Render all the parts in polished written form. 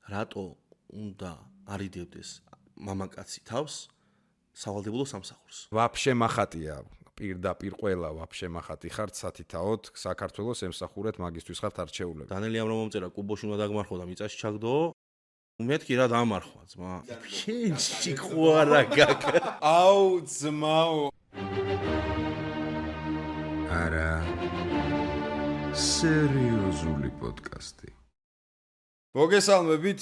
რატო უნდა არიდებდეს მამაკაცი თავს სავალდებულო სამსახურს? ვაფშე მახატია. პირდაპირ ყველა ვაფშე მახატი ხართ სათითაოდ საქართველოს ემსახურეთ მაგისტვის ხართ არჩეულები. დანელი ამრომომწერა კუბოში უნდა დაგმარხო და მიწაში ჩაგდო. მეთქი რა დამარხვა ძმა. შენ ჭიქوارა გაკ. აუ ძმაო. არა სერიოზული პოდკასტი. მოგესალმებით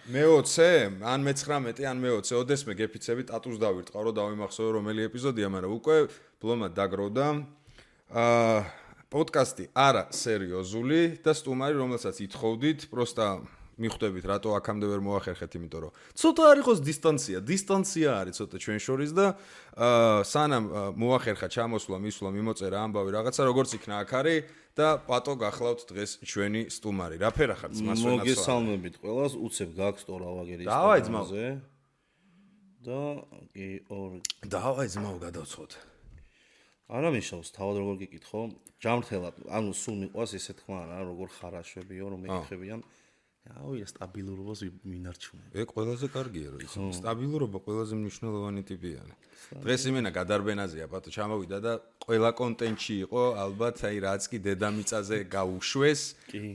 მე-20 ან მე-19 ან მე-20 ოდესმე გეფიცები ტატუს დავირტყარო დავიმახსოვრე რომელი ეპიზოდია, მაგრამ უკვე ბლომა დაგროვდა. პოდკასტი არა სერიოზული და სტუმარი, რომელსაც ითხოვდით, პროსტა მიხვდებით რატო აქამდე ვერ მოახერხეთ, იმიტომ რომ ცოტა არ იყოს დისტანცია არის ცოტა ჩვენ შორის და სანამ მოახერხა ჩამოსვლა, მისვლა, მიმოწერა ამბავი რაღაცა, როგორც იქნა აქ არის და პატო გახლავთ დღეს ჩვენი სტუმარი. რა ფერა ხარ ძმას ვენაცვალე? მოგესალმებით ყველას, უცებ გაქვს ტორავაგერი დავაი ძმაო. და კი ორ დავაი ძმაო გადავწყვეტ. არა მიშავს, თავად როგორ გიკითხო? ჯამრთელად, ანუ სულ მიყვას ესე თქმა რა, როგორ ხარაშებიო, რომ მეკითხებიან. აუ, სტაბილურობას მინარჩუნებ. ყველაზე კარგია რომ ისე სტაბილურობა ყველაზე მნიშვნელოვანი ტიპია. დღეს იმენა გადარბენაზეა, პატო ჩამოვიდა და ყველა კონტენტში იყო, ალბათ აი რაც კი დედამიწაზე გაუშვეს,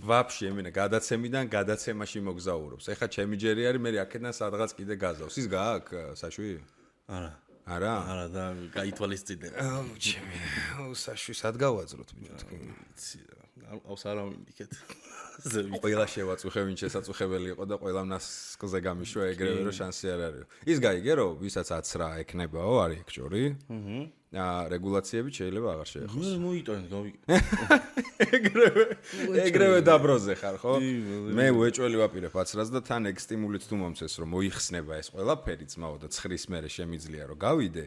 ვაფშე იმენა გადაცემიდან გადაცემაში მოგზაურობს. ეხა ჩემი ჯერი არის, მე აქედან სადღაც კიდე გაზავს. ის გააქვს საშვი? არა. არა? არა და გაითვალისწინებ. აუ, ჩემი, აუ საშვი სად გავაძროთ ბიჭო თქვენ?ავს არა მინდიქეთ. ყველა შევაწუხე, ვინ შესაწუხებელი იყო და ყველა ნასკზე გამიშვა ეგრევე რომ შანსი არ არის. ის გაიგე რომ ვისაც 10 რა ეკნებაო, არის ეგ ჯორი? რეგულაციები შეიძლება აღარ შეეხოს. მე მოიტანეთ გავიგე. ეგრევე დაბროზე ხარ, ხო? მე უეჭველი ვაპირებ 10-რას და თან ეგ სტიმულით თუ მომცეს რომ მოიხსნება ეს ყველაფერი ძმაო და ცხრის მერე შემიძლია რომ გავიდე.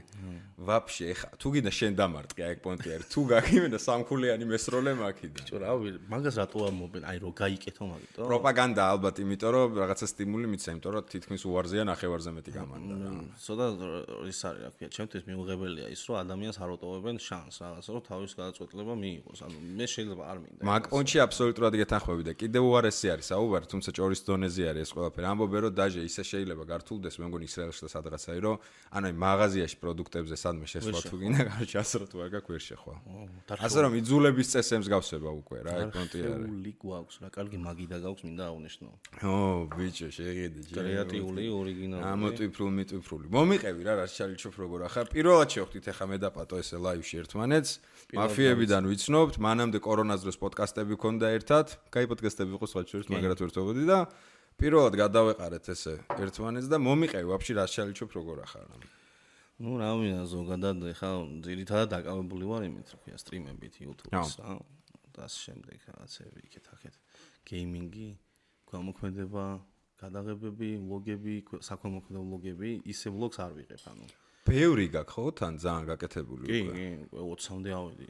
ვაფშე ეხა თუ გინდა შენ დამარტყი აი ეგ პონტი არის. თუ გაგიმენა სამქულიანი მესროლე მაქიდა. ბიჭო რა მაგას რატო ამობენ? აი რომ გაიკეთო მაგიტო. პროპაგანდა ალბათ, იმიტომ რომ რაღაცა სტიმული მიცა, იმიტომ რომ თითქმის უარზეა ნახევარზე მეტი გამანდა რა. ცოტა ის არის რა ქვია, ჩემთვის მიუღებელია ის რომ ადამიანს არ უტოვებენ შანსს რაღაცა რომ თავის გადაწყვეტილება მიიღოს. ანუ მე შეიძლება არ მინდა. მაგ პონჩი აბსოლუტურად გეთანხმები და კიდევ უარესი არის საუბარი, თუმცა ჭორის დონეზე არის ეს ყველაფერი. ამბობენ რომ დაჟე ისე შეიძლება გართულდეს, მე მგონი ისრაელში და სადღაცაა რომ ანუ მაღაზიაში პროდუქტებზე სადმე შესვლა თუ გინდა, გარჩა ასროთ ვარ გაქვს ვერ შეხვა. ასე რომ იძულების წესებს გავსება უკვე რა, ეგ პონტი არის. არქეული გვაქვს რა, კარგი მაგიდა გაქვს, მინდა აღვნიშნო. ბიჭო, შეხედე ჯერ. კრეატიული, ორიგინალური. ამოტვიფრული. მომიყევი რა, რაც ჩალიჩოფ როგორ ახლა. პირველად შევხვდით ახლა მე და პატო ესე ლაივში ერთმანეთს. მაფიებიდან ვიცნობთ, მანამდე კორონას დროს პოდკასტები ქონდა ერთად. კაი პოდკასტები იყო სხვა შორის, მაგრად ვერთობოდი და პირველად გადავეყარეთ ესე ერთმანეთს და მომიყევი ვაფშე რაც ჩალიჩოფ როგორ ახლა. ნუ რა მინდა ზოგადად ახლა ძირითადად დაკავებული ვარ იმით, რა ქვია, სტრიმებით YouTube-ს, და ასე შემდეგ რაღაცები იქეთ-აქეთ. გეიმინგი, გამოქმედება, გადაღებები, ვლოგები, საქველმოქმედო ვლოგები, ისე ვლოგს არ ვიღებ, ანუ. ბევრი გაქვს ხო თან ძალიან გაკეთებული უკვე? კი, 20-მდე ავედი.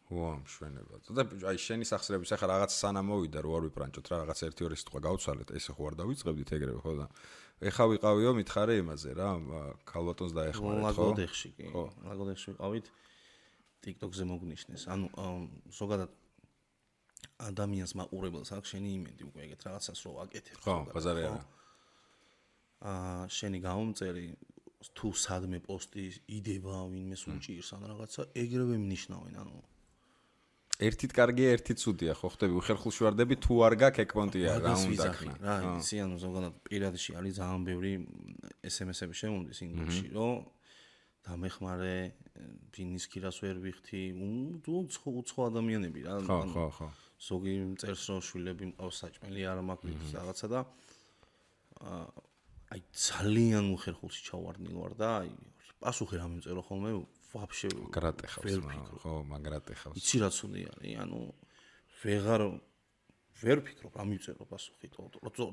ვა, მშვენება. და აი შენი სახსრების ახლა რაღაც სანამ მოვიდა რო არ ვიპრანჭოთ რა, რაღაც 1-2 სიტყვა გავცვალეთ, ესე ხო არ დავიწყებდით ეგრევე ხო და ეხა ვიყავიო მითხარე იმაზე რა, ქალბატონს დაეხმარეთ ხო? ლაგოდეხში კი. ლაგოდეხში ვიყავით TikTok-ზე მოგნიშნეს. ანუ ზოგადად ადამიანს მაყურებელს აქვს შენი იმედი უკვე ეგეთ რაღაცას რო აკეთებ. ხო, ბაზარი არა. შენი გამომწერი თუ სადმე პოსტი იდება, ვინმეს უჭირს ან რაღაცა, ეგრევე მნიშნავენ, ანუ ერთით კარგია, ერთით ცუდია, ხო ხდები, უხერხულშვარდები თუ არ გაქვს ეგ პონტია რა უნდა ქნა. რა, ისი ანუ ზოგადად პირადში არის ძალიან ბევრი SMS-ები შემომდის ინდუქსში, რომ დამეხმარე, ბინის ქირას ვერ ვიხთი, უცხო ადამიანები რა. ხო. ზოგი წერს რომ შვილები მყავს საჭმელი არ მაქვს რაღაცა და აი ძალიან უხერხულში ჩავარდნილ ვარ და აი პასუხი რა მიმწერო ხოლმე ვაფშე მაგრატეხავს ხო მაგრატეხავს. იცი რა ცუდი არის, ანუ ვერ ვფიქრობ რა მიმწერო პასუხი,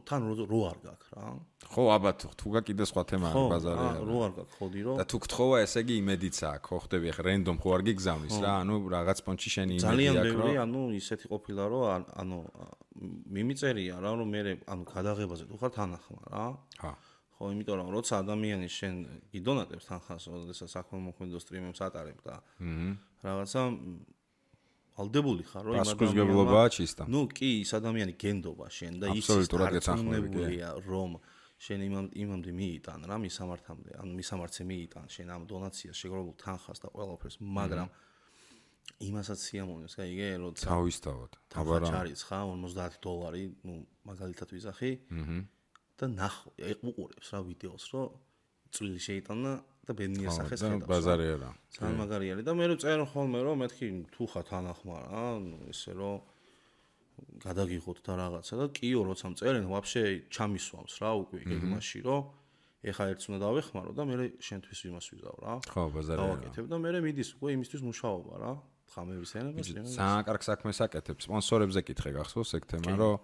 თან რო არ გაქვს რა. ხო აბა თუ გაქვს სხვა თემა არის ბაზარი არა. რო არ გაქვს ხოდი რომ და თუ გთხოვა ესე იგი იმედიც აქვს, ხო ხდები ახლა რენდომ ხო არ გიგზავნის რა, ანუ რაღაც პონჩი შენი იმედი აქვს. ძალიან ბევრი, ანუ ისეთი ყოფილა რომ ანუ მიმიწერია რა, რომ მე ანუ გადაღებაზე თუ ხარ თანახმა რა. ხო, იმიტომ რომ როცა ადამიანი შენ გიდონატებს თანხას, როდესაც საქველმოქმედო სტრიმებს ატარებ და რაღაცა ვალდებული ხარ რომ პასუხისმგებლობაა ჩისტა. ნუ კი ის ადამიანი გენდობა შენ და ის დარწმუნებულია რომ შენ იმამდე მიიტან რა მისამართამდე ან მისამართზე მიიტან შენ ამ დონაციას შეგროვებულ თანხას და ყველაფერს მაგრამ იმასაც სიამოვნებს გაიგე როცა თავისთავად აბარა ჩარიცხა $50 ნუ მაგალითად ვიზახი და უყურებს რა ვიდეოს რომ წვლილი შეიტანა და ბედნიერ სახეს ხედავს ბაზარი არა ძალიან მაგარი არის და მე რო წერ ხოლმე რომ მეთქი თუ ხარ თანახმა რა ესე რომ გადაგიღოთ და რაღაცა და კიო როცა მწერენ ვაფშე ჩამისვამს რა უკვე გეგმაში რომ ეხა ერთს უნდა დავეხმარო და მე შენთვის იმას ვიზავ რა ხო ბაზარი არა დავაკეთებ და მე მიდის უკვე იმისთვის მუშაობა რა ხამების ენებას ძალიან კარგ საქმეს აკეთებს სპონსორებზე კითხე გახსოვს ეგ თემა რომ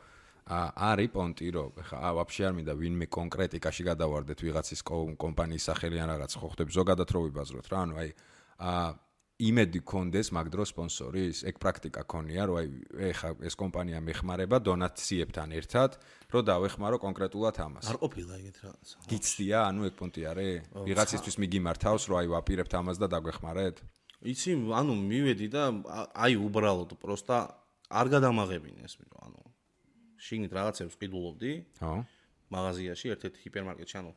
არის პონტი რომ ხა ვაფშე არ მინდა ვინმე კონკრეტიკაში გადავარდეთ ვიღაცის კომპანიის სახელი ან რაღაც ხო ხდები ზოგადად რო ვიბაზროთ რა ანუ აი იმედი კონდეს მაგ დროს სპონსორის ეგ პრაქტიკა ქონია რომ აი ეხა ეს კომპანია მეხმარება დონაციებთან ერთად რომ დავეხმარო კონკრეტულად ამას არ ყოფილა ეგეთ რაღაცა გიცდია ანუ ეგ პონტი არის ვიღაცისთვის მიგიმართავს რომ აი ვაპირებთ ამას და დაგვეხმარეთ იცი ანუ მივედი და აი უბრალოდ პროსტა არ გადამაღებინეს ანუ შიგნით რაღაცებს ყიდულობდი ხო მაღაზიაში ერთ-ერთი ჰიპერმარკეტში ანუ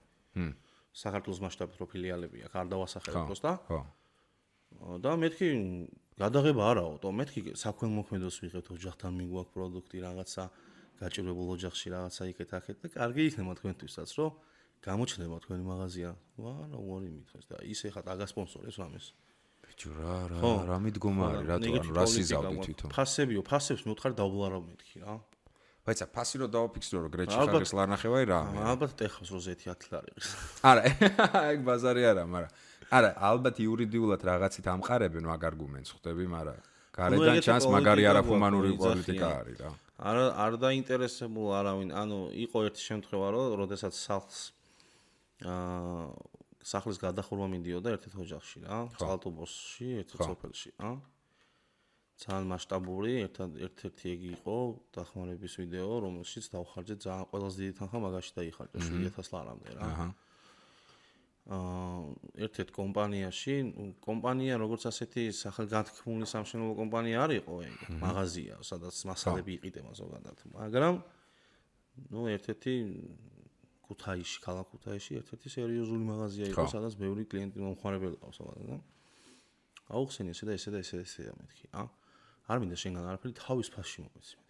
საქართველოს მასშტაბით რო ფილიალები აქვს არ დავასახელებ პროსტა ხო და მეთქი გადაღება არაო, მეთქი საქველმოქმედოს ვიღებთ ოჯახთან მიგვაქვს პროდუქტი რაღაცა გაჭირვებულ ოჯახში რაღაცა იქეთ-აქეთ და კარგი იქნება თქვენთვისაც რომ გამოჩნდება თქვენი მაღაზია. ვარა უარი მითხეს და ის ეხა დაგასპონსორებს რამეს. ბიჭო რა მიდგომა არის რატო ანუ რა სიზავდი თვითონ. ფასებს მივთხარ დავბლარავ მეთქი რა. ბაიცა ფასი რო დავაფიქსირო რომ გრეჩი ხაგეს ლარნახევაი რა. ალბათ ტეხავს როზეთი 10 ლარი არის. არა ეგ ბაზარი არა მაგრამ არა ალბათ იურიდიულად რაღაცით ამყარებენ მაგ არგუმენტს ხვდები მაგრამ გარედან ჩანს მაგარი არაფუმანური პოლიტიკა არის რა არ დაინტერესებულ არავინ ანუ იყო ერთი შემთხვევა რომ როდესაც სახლის გადახურვა მინდიოდა ერთ-ერთ ოჯახში რა წყალტუბოში ერთ-ერთ სოფელში რა ძალიან მასშტაბური ერთ-ერთი ეგ იყო დახმარების ვიდეო რომელშიც დავხარჯეთ ძალიან ყველაზე დიდი თანხა მაგაში დაიხარჯა 7000 ლარამდე რა ერთ-ერთ კომპანიაში კომპანია როგორც ასეთი სახელგანთქმული სამშენებლო კომპანია არ იყო ეგ მაღაზია სადაც მასალები იყიდება ზოგადად მაგრამ ნუ ერთ-ერთი ქუთაისში ქალაქ ქუთაისში ერთ-ერთი სერიოზული მაღაზია იყო სადაც ბევრი კლიენტი მომხმარებელი ყავს ზოგადად და აუხსენი ესე და მეთქი არ მინდა შენგან არაფერი თავის ფასში მომეცი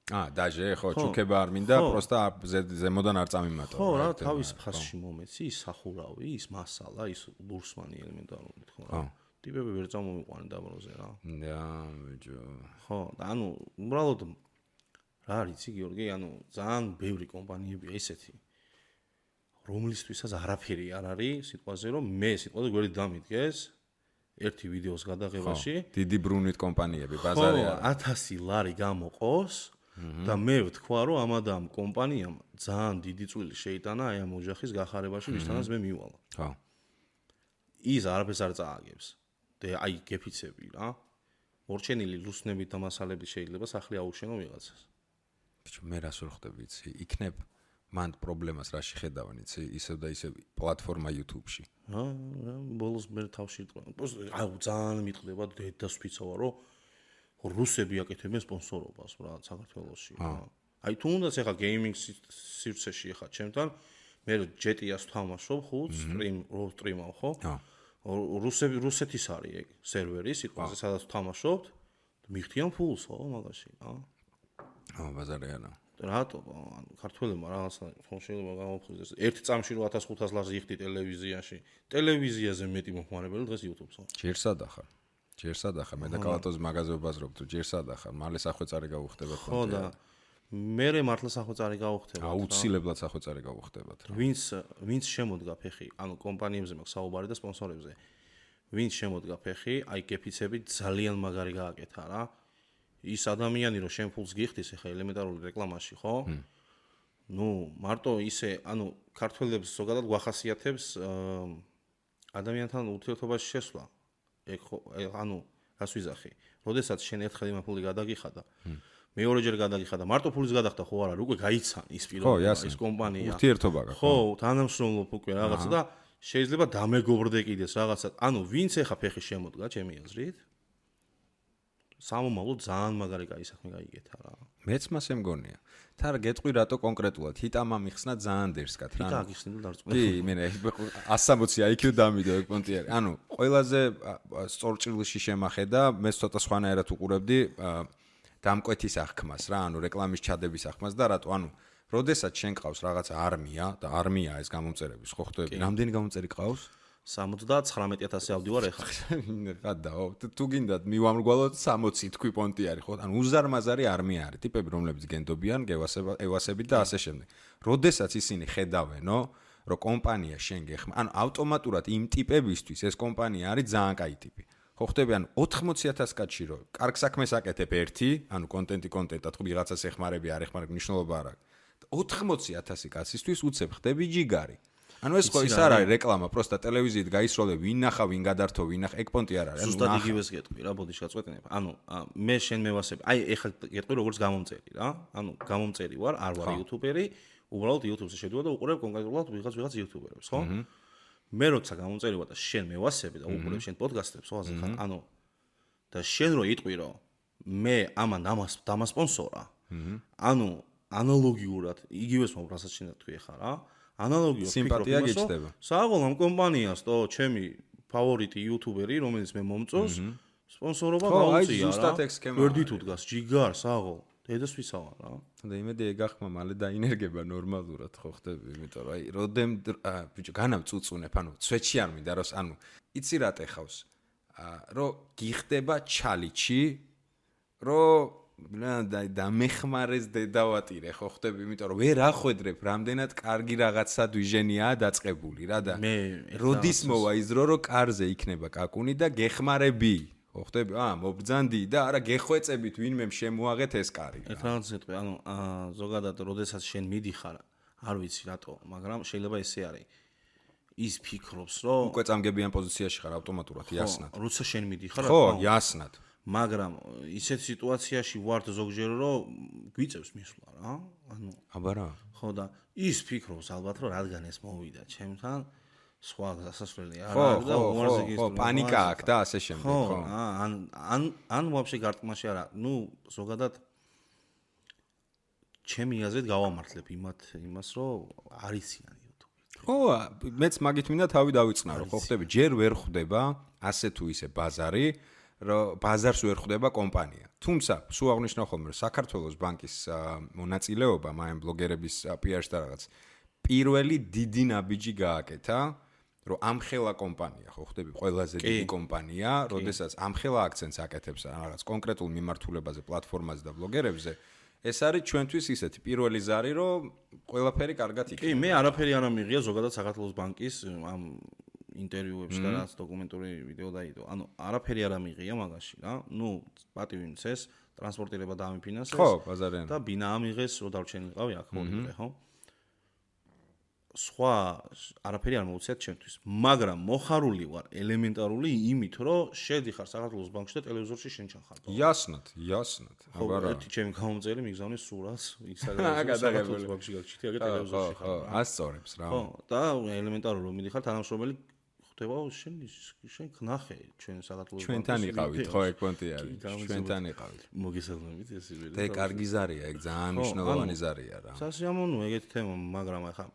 დაჟე ხო ჩუქება არ მინდა პროსტა ზემოდან არ წამიმატო ხო რა თავის ფასში მომეცი ის სახურავი ის მასალა ის ლურსმანი ელემენტარული თქო რა ტიპები ვერ წამომიყვანენ დაბროზე რა ბიჭო ხო და ანუ უბრალოდ რა არის გიორგი ანუ ძალიან ბევრი კომპანიებია ისეთი რომლისთვისაც არაფერი არ არის სიტყვაზე რომ მე სიტყვაზე გვერდი დამიდგეს ერთი ვიდეოს გადაღებაში დიდი ბრუნვით კომპანიები ბაზარი არა 1000 ლარი გამოყოს და მე ვთქვა რომ ამადამ კომპანიამ ძალიან დიდი წვლილი შეიტანა აი ამ ოჯახის გახარებაში ვისთანაც მე მივალა ხო ის არაფერს არ წააგებს და აი გეფიცები რა მორჩენილი ლუსნებით და მასალებით შეიძლება სახლი აუშენო ვიღაცას ბიჭო მე რას ვერ ხვდები იცი იქნებ მანდ პრობლემას რაში ხედავენ იცი ისევ და ისევ პლატფორმა YouTube-ში ბოლოს მე თავში აი ძალიან მიტყდება დედას ვფიცოვა რომ რუსები აკეთებენ სპონსორობას რა საქართველოში აი თუნდაც ეხა გეიმინგ სივრცეში ეხა ჩემთან მე ჯეტიას თამაშობ ხუთ სტრიმავ ხო რუსეთის არის ეგ სერვერი სიტყვაზე სადაც თამაშობთ მიხდიან ფულს ხო მაგაში ბაზარი არა რატო ანუ ქართველებმა რაღაცა შეიძლება გამოფხიზდეს ერთი წამში 1500 ლარს იხდი ტელევიზიაზე მეტი მომხმარებელი დღეს YouTube-ს ჯერსად ახარ მე და კალატოს მაღაზია ვბაზრობ თუ ჯერსად ახარ მალე სახვეწარი გავუხდებათ ხო და მე მართლა სახვეწარი გავუხდებათ აუცილებლად სახვეწარი გავუხდებათ ვინც შემოდგა ფეხი ანუ კომპანიებზე მაქვს საუბარი და სპონსორებზე ვინც შემოდგა ფეხი აი კეფიცები ძალიან მაგარი გააკეთა რა ის ადამიანი რომ შენ ფულს გიხდის ახლა ელემენტარული რეკლამაში ხო? ნუ მარტო ისე ანუ ქართველებს ზოგადად გვახასიათებს ადამიანთან ურთიერთობაში შესვლა. ეგ ხო ანუ რას ვიზახი? როდესაც შენ ერთხელ იმ ფული გადაგიხადა მეორეჯერ გადაგიხადა მარტო ფულის გადახდა ხო არა უკვე გაიცან ის პიროვნება ის კომპანია ურთიერთობა გაქვს ხო თანამშრომლობ უკვე რაღაცა და შეიძლება დამეგობრდე კიდეს რაღაცა ანუ ვინც ახლა ფეხი შემოდგა ჩემი აზრით სამომავლო ძალიან მაგარი კაი საქმე გაიგეთა რა. მეც მასე მგონია. თარ გეტყვი რატო კონკრეტულად ჰიტამა მიხსნა ძალიან დერსკად რა. ჰიტა გიხსნა და დარწმუნდა. კი, მე 160 IQ დამიდო ეგ პონტი არის. ანუ ყველაზე სწორჭრილში შემახედა, მე ცოტა სხვანაირად უყურებდი დამკვეთის აღქმას რა, ანუ რეკლამის ჩადების აღქმას და რატო, ანუ როდესაც შენ ყავს რაღაცა არმია და არმია ეს გამომწერების ხო ხვდები, რამდენი გამომწერი ყავს? 79000 ავდი ვარ ეხლა. გადაო, თუ გინდათ მივამრგვალოთ 60 თქვი პონტი არის ხო? ანუ უზარმაზარი არმია არის, ტიპები რომლებიც გენდობიან, ევასებით და ასე შემდეგ. როდესაც ისინი ხედავენო, რომ კომპანია შენ გეხმა, ანუ ავტომატურად იმ ტიპებისთვის ეს კომპანია არის ძალიან კაი ტიპი. ხო ხვდები, ანუ 80000 კაცში რო კარგ საქმეს აკეთებ ერთი, ანუ კონტენტად ხო ვიღაცას ეხმარები არ ეხმარებ მნიშვნელობა არ აქვს. 80000 კაცისთვის უცებ ხდები ჯიგარი. ანუ ეს ხო ის არ არის რეკლამა, პროსტა ტელევიზიით გაისროლე, ვინ ნახა, ვინ გადართო, ვინ ნახა, ეგ პონტი არ არის. ზუსტად იგივეს გეტყვი რა, ბოდიში გაწყვეტინებ. ანუ მე შენ მევასები, აი ეხლა გეტყვი როგორც გამომწერი რა. ანუ გამომწერი ვარ, არ ვარ იუთუბერი, უბრალოდ იუთუბზე შედივა და უყურებ კონკრეტულად ვიღაც იუთუბერებს, ხო? მე როცა გამომწერი ვარ და შენ მევასები და უყურებ შენ პოდკასტებს, ხო ასე ხარ? ანუ და შენ რო იტყვი რომ მე ამან დამასპონსორა. ანუ ანალოგიურად იგივეს მომბრასაც შენ თქვი ხარ რა. ანალოგიურად სიმპათია გეჩდება. საღოლ ამ კომპანიას თო ჩემი ფავორიტი იუთუბერი რომელიც მე მომწონს სპონსორობა გაუწია რა. ვერდით უდგას ჯიგარ საღოლ დედასვისა ვარ რა. და იმედი ეგ ახმა მალე დაინერგება ნორმალურად ხო ხდები, იმიტომ რომ აი როდემ ბიჭო განავწუწუნებ, ანუ ცვეთში არ მინდა რომ ანუ იცი რა ტეხავს. რომ გიხდება ჩალიჩი, რომ და მეხმარეს დედავატირე ხო ხდები, იმიტომ რომ ვერ ახვედრებ რამდენად კარგი რაღაცა დვიჟენიაა დაწყებული რა და როდის მოვა ის დრო რომ კარზე იქნება კაკუნი და გეხმარები ხო ხდები? მობრძანდი და არა გეხვეწებით ვინმე შემოაღეთ ეს კარი. ერთ რაღაცას ეტყვი, ანუ ზოგადად როდესაც შენ მიდიხარ, არ ვიცი რატო, მაგრამ შეიძლება ესე არის. ის ფიქრობს, რომ უკვე წამგებიან პოზიციაში ხარ ავტომატურად, იასნად. როცა შენ მიდიხარ, ხო, იასნად. მაგრამ ისეთ სიტუაციაში ვართ ზოგჯერ რომ გვიწევს მისვლა რა. ანუ აბა რა. ხო და ის ფიქრობს ალბათ რომ რადგან ეს მოვიდა ჩემთან სხვა გასასვლელი არ არის და უარზე გისწრება. ხო, პანიკა აქვს და ასე შემდეგ, ხო. ან ვაფშე გარტყმაში არა. ნუ ზოგადად ჩემი აზრით გავამართლებ იმას რომ არიციან YouTube-ი. ხო, მეც მაგით მინდა თავი დავიწყნარო, ხო ხდები, ჯერ ვერ ხვდება ასე თუ ისე ბაზარი, რომ ბაზარს ვერ ხვდება კომპანია. თუმცა, სულ აღნიშნავ ხოლმე, რომ საქართველოს ბანკის მონაწილეობა მაიმ ბლოგერების PR-ში და რაღაც პირველი დიდი ნაბიჯი გააკეთა, რომ ამხელა კომპანია, ხო ხდები, ყველაზე დიდი კომპანია, როდესაც ამხელა აქცენტს აკეთებს რაღაც კონკრეტულ მიმართულებაზე, პლატფორმაზე და ბლოგერებზე, ეს არის ჩვენთვის ისეთი პირველი ზარი, რომ ყველაფერი კარგად იქნება. კი, მე არაფერი არ ამიღია ზოგადად საქართველოს ბანკის ამ ინტერვიუებში და რაც დოკუმენტური ვიდეო დაიდო. ანუ არაფერი არ ამიღია მაგაში რა. ნუ პატივი მცეს, ტრანსპორტირება დაამიფინანსეს. ხო, ბაზარიან. და ბინა ამიღეს, რომ დარჩენილიყავი აქ მოვიდე, ხო? სხვა არაფერი არ მოუწიათ ჩემთვის, მაგრამ მოხარული ვარ ელემენტარული იმით, რომ შედიხარ საქართველოს ბანკში და ტელევიზორში შენ ჩახარ. იასნად. აბა რა. ერთი ჩემი გამომწერი მიგზავნის სურათს, საქართველოს ბანკში გაგჩიტი, აგე ტელევიზორში ხარ. ასწორებს რა. ხო, და ელემენტარული რომ მიდიხარ თანამშრომელი ხდება შენ knახე ჩვენ საქართველოს ბანკში. ჩვენთან იყავით, ხო, ეგ პონტი არის. ჩვენთან იყავით. მოგესალმებით ეს იბერი. და კარგი ზარია, ეგ ძალიან მნიშვნელოვანი ზარია რა. სასიამოვნოა ეგეთი თემა, მაგრამ ახლა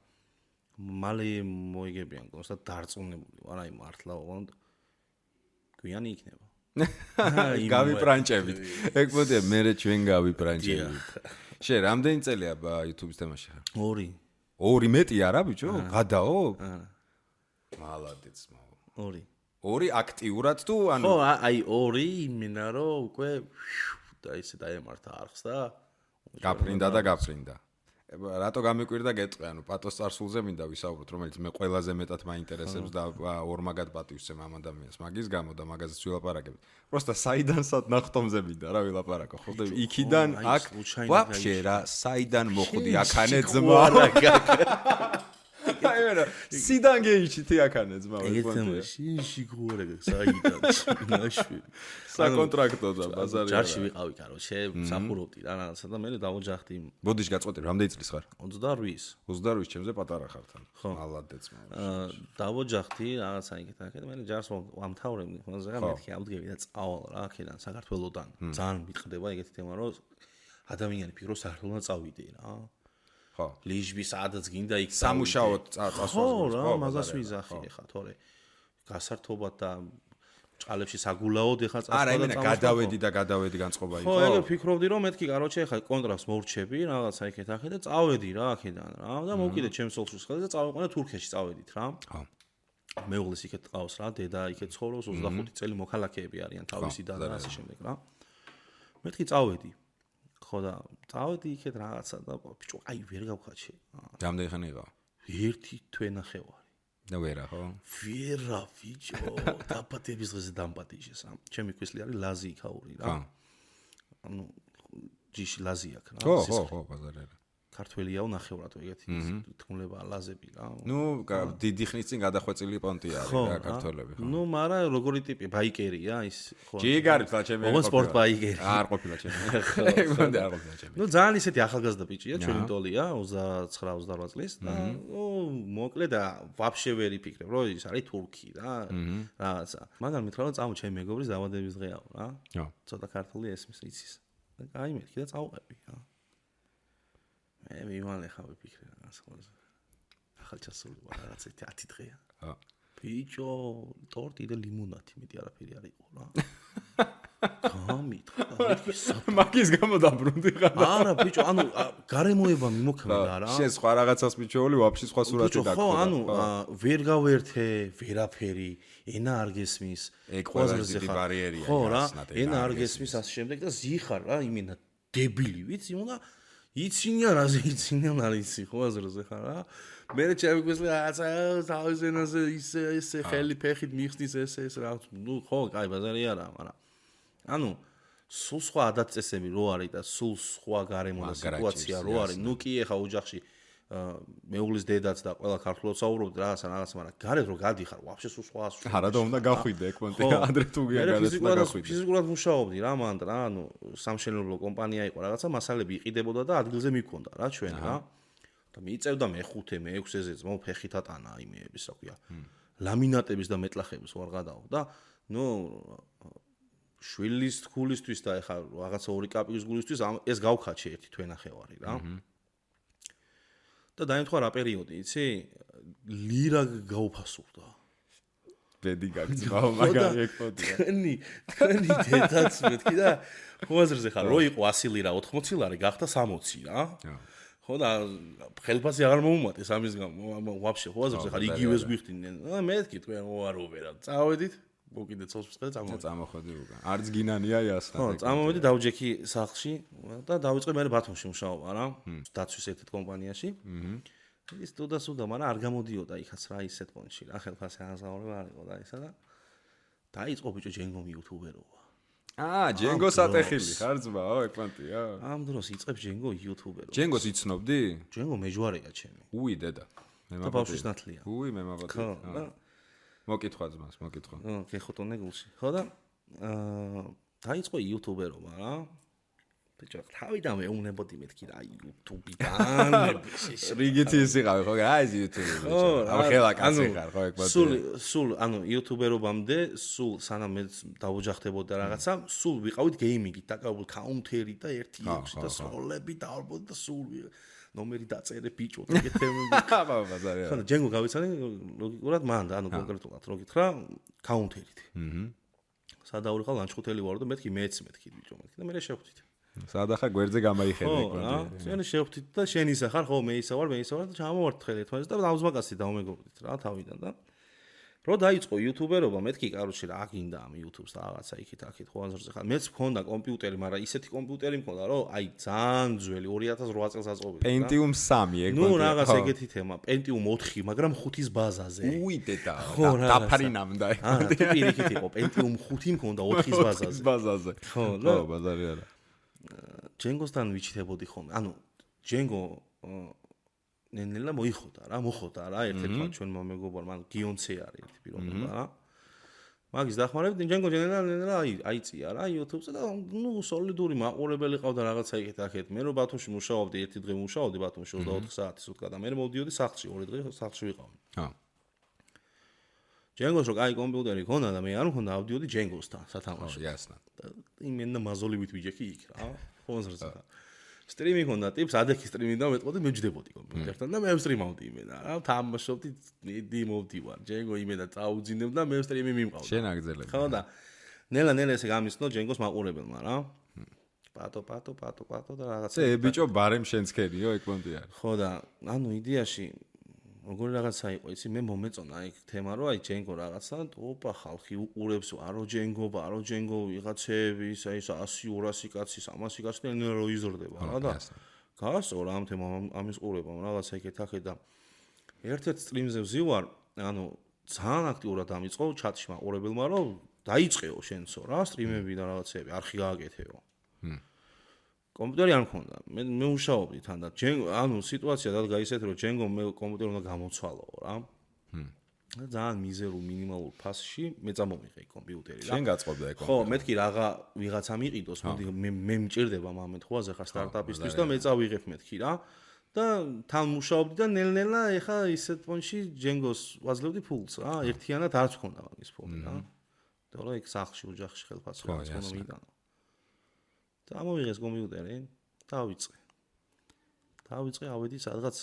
მალე მოიგებიან კონსტა დარწმუნებული ვარ, აი მართლა ოღონდ გვიანი იქნება. გავიპრანჭებით. ეგ პონტია, მე ჩვენ გავიპრანჭებით. შენ რამდენი წელია YouTube-ის თემაში ხარ? 2. 2 მეტი არა ბიჭო? გადაო? მალადეც მაო. 2. 2 აქტიურად თუ ანუ ხო, აი 2 იმენა რომ უკვე და ისე დაემართა არხს და გაფრინდა. რატო გამიკვირდა გეტყვი, ანუ პატოს წარსულზე მინდა ვისაუბროთ, რომელიც მე ყველაზე მეტად მაინტერესებს და ორმაგად პატივსცემ ამ ადამიანს მაგის გამო და მაგაზეც ვილაპარაკებ. პროსტა საიდანსად ნახტომზე მინდა რა ვილაპარაკო, ხო? იქიდან აქ ვაფშე რა, საიდან მოხვდი აქანე ძმა. აი ვერა სიდან გეიჩითი აქანე ძმა ეგეთმა შიგურე საიდან ნაშვი საკონტრაქტო და ბაზარი ჯარში ვიყავი კაროჩე სამხურობდი რა რაღაცა და მე დავოჯახდი ბოდიში გაწყვეტი რამდენი წლის ხარ 28 ჩემზე პატარა ხარ თან მალადეც დავოჯახდი რაღაცა იქეთ მე ჯარს ვამთავრებდი ხოლმე რა მეთქი ავდგები და წავალ რა აქედან საქართველოსდან ძალიან მიტყდება ეგეთი თემა რომ ადამიანი ფიქრობს საქართველოსდან წავიდე რა ხო ლიჟბი სადაც გინდა იქ სამუშაოდ წასვლას ხო რა მაგას ვიზახი ხა თორე გასართობად და ჭალებში საგულაოდ ეხა წასვლა არა იმენა გადავედი განწყობა იყო ხო ეგ ფიქრობდი რომ მეთქი კაროჩე ეხა კონტრაქტს მორჩები რაღაცა იქეთ ახე და წავედი რა აქედან რა და მოვკიდე ჩემს სოლსუს ხელზე და წავიყვანე თურქეთში წავედით რა ხო მეუღლის იქეთ ყავს რა დედა იქეთ ცხოვრობს 25 წელი მოქალაქეები არიან თავისი და ასე შემდეგ რა მეთქი წავედი ხო და წავედი იქეთ რაღაცა და ბიჭო აი ვერ გავხაჩე რამდენი ხანი იყო ერთი თვენახევარი და ვერა ხო ვერა ბიჭო დაპატების დღეზე დამპატიჟეს ჩემი ქვესლი არის ლაზი იქაური რა ანუ ჯიში ლაზი აქ რა ხო ბაზარი არა ქართველიაო ნახევრად ეგეთი თქმულება ლაზები რა ნუ დიდი ხნის წინ გადახვეწილი პონტი არის რა ქართველები ხო ნუ მარა როგორი ტიპი ბაიკერია ის ხო ჯიგარი თლა ჩემი ოღონდ სპორტ ბაიკერი არ ყოფილა ჩემი ეგონდა არ ყოფილა ჩემი ნუ ძალიან ისეთი ახალგაზრდა ბიჭია ჩვენი ტოლია 29-28 წლის და მოკლე და ვაფშე ვერ იფიქრებ რომ ის არის თურქი რა რაღაცა მაგრამ მითხრა რომ წამო ჩემი მეგობრის დაბადების დღეაო რა ცოტა ქართული ესმის იცის და აი მეთქი და წავყები რა მე მივანე ხა ვიფიქრე რაღაც ხოლმე ახალჩასული რაღაცა 10 დღეა ხო ბიჭო ტორტი და ლიმონადი მეტი არაფერი არ იყო რა გამით მაგის გამო დაბრუნდი ხარ არა ბიჭო ანუ გარემოება მიმოქმედა რა შენ სხვა რაღაცას მიჩვეული ვაფშე სხვა სურათი დაგხვდა ხო ანუ ვერ გავერთე ვერაფერი ენა არ გესმის ეგ ყველაზე დიდი ბარიერია ხო რა ენა არ გესმის ასე შემდეგ და ზიხარ რა იმენა დებილი ვიცი უნდა იცინია რაზე იცინიან არ იცი ხო აზრზე ხარ რა მე ჩემიგვესლი რაღაცა თავის ენაზე ისე ხელი ფეხით მიხსნის ეს რა ნუ ხო კაი ბაზარი არა მაგრამ ანუ სულ სხვა ადათ-წესები რო არის და სულ სხვა გარემო და სიტუაცია რო არის ნუ კი ეხა ოჯახში მეუღლის დედაც და ყველა ქართულად საუბრობთ რაღაცა მაგრამ გარეთ რო გადიხარ ვაფშე სულ სხვა არა და უნდა გახვიდე ეგ პონტი ადრე თუ გაგაცდა გახვიდე ფიზიკურად მუშაობდი რა მანდ რა ანუ სამშენებლო კომპანია იყო რაღაცა მასალები იყიდებოდა და ადგილზე მიქონდა რა ჩვენ რა და მიიწევდა მე-5 მე-6-ზე ძმო ფეხით ატანა იმეების რა ქვია ლამინატების და მეტლახების ვარ გადაო და ნუ შვილის თქულისთვის და ეხა რაღაცა 2 კაპიკის გულისთვის ეს გავხაჩე ერთი თვენახევარი რა და დაემთხვა რა პერიოდი იცი ლირა გაუფასურდა ბედი გაგწმაო მაგარი ეკოდია თქვენი დედაც მეთქი და ხوازრზე ხარ რო იყო 100 ლირა 80 ლარი გახდა 60 რა ხო და ხელფასი აღარ მოუმატეს ამის გამო ვაფშე ხوازრზე ხარ იგივეს გვიხდინენ მეთქი თქვენ ოარო ვერა წავედით მოკიდე ცოლს ხელ წამოხვედი უკან არც გინანია იასნა ხო წამოვედი დავჯექი სახლში და დავიწყე მე ბათუმში მუშაობა რა დაცვის ერთ კომპანიაში ის თუდასუდა მაგრამ არ გამოდიოდა იქაც რა ისეთ პონჩი რა ხელფასი აღზაურება არ იყო და ისა და დაიწყო ბიჭო ჯენგომი იუთუბერობა ჯენგო სატეხილი ხარ ძმაო ეგ პონტია ამ დროს იწყებ ჯენგო იუთუბერობა ჯენგოს იცნობდი ჯენგო მეჯვარეა ჩემი უი დედა მე მაბავშვის ნათლია უი მე მაბავშვი მოკითხვა ძმას მოკითხვა გეხოტონე გულში ხო და დაიწყო იუთუბერობა რა ბიჭო თავიდან მეუნებოდი მეთქი რა იუთუბიდან რიგითი ის იყავი ხო აი ეს იუთუბი ბიჭო ამ ხელა კაცი ხარ ხო ეგ პატი სულ ანუ იუთუბერობამდე სულ სანამ მე დავოჯახდებოდა რაღაცა სულ ვიყავით გეიმინგით დაკავებული კაუნტერი და 1-6 და სოლები დავარბოდი და სულ ნომერი დაწერე ბიჭო ეგეთ თემები აბა ბაზარია ხო ჯენგო გავიცანი ლოგიკურად მან და ანუ კონკრეტულად რო გითხრა კაუნტერით სადაურიყავ ლანჩხუთელი ვარ და მეთქი მეც მეთქი ბიჭო მეთქი და მე შევხვდით სადახა გვერდზე გამაიხედე ეგ პონტი შენ შევხვდით და შენ ისა ხარ ხო მე ისა ვარ და ჩამოვართ ხელი ერთმანეთს და დაუზმაკაცი დავმეგობრდით რა თავიდან და რო დაიწყო იუთუბერობა მეთქი კაროჩი რა გინდა ამ იუთუბს და რაღაცა იქით აქეთ ხო აზრზე ხარ მეც მქონდა კომპიუტერი მაგრამ ისეთი კომპიუტერი მქონდა რომ აი ძალიან ძველი 2008 წელს აწყობილი Pentium 3 ეგ ნუ რაღაც ეგეთი თემა Pentium 4 მაგრამ 5-ის ბაზაზე უი დედა დაფარინამდა ეგ არა თუ პირიქით იყო Pentium 5 მქონდა 4-ის ბაზაზე ხო ბაზარი არა ჯენგოსთან ვიჩითებოდი ხოლმე ანუ ჯენგო ნენელა მოხოდა რა ერთ-ერთმა ჩვენმა მეგობარმა გიონცე არის ერთი პიროვნება რა მაგის დახმარებით ჯენგო ნენელა აიწია რა YouTube-ზე და სოლიდური მაყურებელი ყავდა რაღაცა იქეთ მე რო ბათუმში მუშაობდი ერთი დღე მუშაობდი ბათუმში 24 საათი სუტკა და მე მოვდიოდი სახლში 2 დღე სახლში ვიყავი ჯენგოს რო კაი კომპიუტერი ქონდა და მე არ მქონდა ავდიოდი ჯენგოსთან სათამაშო იასნა იმენა მაზოლივით ვიჯექი იქ რა ფონზრზე სტრიმი ქონდა ტიპს ადექი სტრიმი და მეტყოდი მე ვჯდებოდი კომპიუტერთან და მე ვსტრიმავდი იმენა რა თამაშობდი მოვდივარ ჯენგო იმენა წაუძინებ და მე სტრიმი მიმყავდა შენ აგზელებ ხო და ნელა ესე გამისნო ჯენგოს მაყურებელმა რა პატო და რაღაცა ე ბიჭო ბარემ შენს ქერიო ეგ პონტი არის ხო და ანუ იდეაში როგორი რაღაცა იყო იცი მე მომეწონა იქ თემა რომ აი ჯენგო რაღაცა ოპა ხალხი უყურებს არო ჯენგო ვიღაცები აი 100-200 კაცი 300 კაცი და ნელა რო იზრდება რა და გასწორა ამ თემა ამის ყურებამ რაღაცა იქეთ და ერთ-ერთ სტრიმზე ვზივარ ანუ ძალიან აქტიურად ამიწყო ჩატში მაყურებელმა რომ დაიწყეო შენსო რა სტრიმები და რაღაცები არხი გააკეთეო კომპიუტერი არ მქონდა მე მუშაობდი თან და ანუ სიტუაცია დადგა ისეთ რომ ჯენგო მე კომპიუტერი უნდა გამოცვალოო რა და ძალიან მიზერულ მინიმალურ ფასში მე წამოვიღე კომპიუტერი რა შენ გაწყობდა ეგ ხო მეთქი რაღა ვიღაცა მიყიდოს მოდი მე მჭირდება მომენტ ხო აზეხა სტარტაპისთვის და მე წავიღებ მეთქი რა და თან მუშაობდი და ნელ-ნელა ეხა ისეთ პონში ჯენგოს ვაძლევდი ფულს რა ერთიანად არც მქონდა მაგის ფული რა და რა იქ სახლში ოჯახში ხელფასი რაღაც ხომ მიდანო დამოვიღეს კომპიუტერი დავიწყე ავედი სადღაც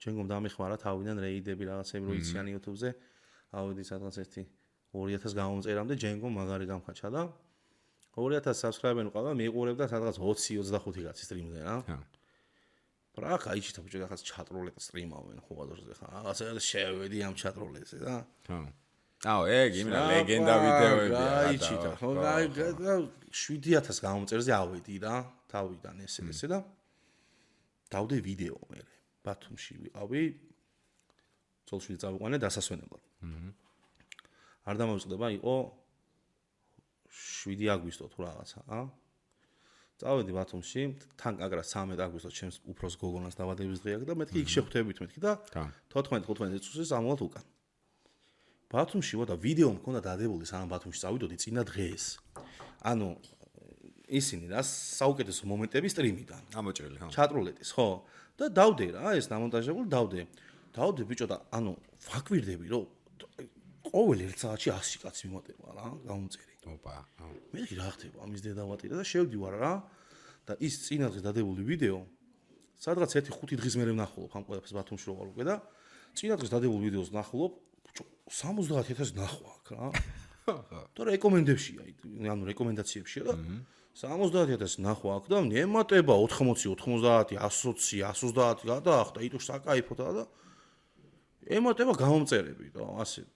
ჯენგომ დამეხმარა თავიდან რეიდები რაღაცები რო იციან YouTube-ზე ავედი სადღაც ერთი 2000 გამომწერამდე ჯენგომ მაგარი გამხაჩა და 2000 subscriber-ი ყავდა მიყურებდა სადღაც 20-25 კაცი სტრიმზე რა რა кайჭი თქო რაღაც ჩატროლეთ სტრიმავენ ხო აზრზე ხა რაღაცა შევედი ამ ჩატროლეთზე და აუ ეგ იმენა ლეგენდა ვიდეოებია კაიჭი და ხო 7000 გამომწერზე ავედი რა თავიდან ესე და დავდე ვიდეო მე ბათუმში ვიყავი ცოლში წავიყვანე დასასვენებლად არ დამოვიწყდება იყო 7 აგვისტო თუ რაღაცა წავედი ბათუმში თან კაგრა 13 აგვისტოს ჩემს უფროს გოგონას დაბადების დღე აქვს და მეთქი იქ შეხვდებით მეთქი და 14-15 წუთში სამულად უკან ბათუმში ვარ და ვიდეო მქონდა დადებული სანამ ბათუმში წავიდოდი წინა დღეს ანუ ისინი რა საუკეთესო მომენტები სტრიმიდან ამოჭრილი ხო ჩატროლეთის ხო და დავდე რა ეს დამონტაჟებული დავდე ბიჭო და ანუ ვაკვირდები რომ ყოველ ერთ საათში 100 კაცი მიმატება რა გამომწერი ოპა მე რა ხდება ამის დედავატირა და შევდივარ რა და ის წინა დღეს დადებული ვიდეო სადღაც 1-5 დღის მერე ვნახულობ ამ ყველაფერს ბათუმში რო ვარ უკვე და წინა დღეს დადებული ვიდეოს ვნახულობ 70000 ნახვა აქ რა და რეკომენდებშია ანუ რეკომენდაციებშია და 70000 ნახვა აქ და ემატება 80 90 120 130 გადაახდა იტო საკაიფოთა და ემატება გამომწერები და ასე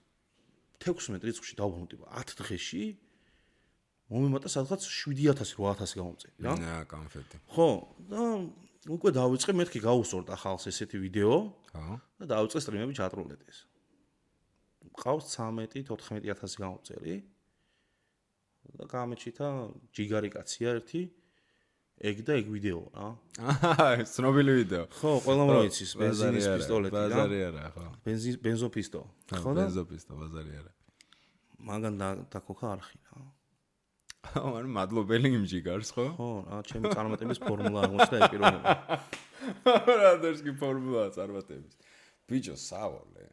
16 რიცხვში დავბრუნდი 10 დღეში მომემატა სადღაც 7000-8000 გამომწერი რა კონფეტი ხო და უკვე დავიწყე მეთქი გაუსწორდა ხალხს ესეთი ვიდეო ხო და დავიწყე სტრიმები ჩატროლეთის ყავს 13-14000 გამომწერი და გამეჩითა ჯიგარი კაცია ერთი ეგ და ეგ ვიდეო რა ცნობილი ვიდეო ხო ყველამ როიცის ბენზინის პისტოლეტი და ბაზარი არა ხო ბენზოპისტო ხო ბენზოპისტო ბაზარი არა მაგან დაკოქა არხი რა ანუ მადლობელი იმ ჯიგარს ხო ხო რა ჩემი წარმატების ფორმულა აღმოჩნდა ეს პიროვნება რა დერსკი ფორმულა წარმატების ბიჭო სავალე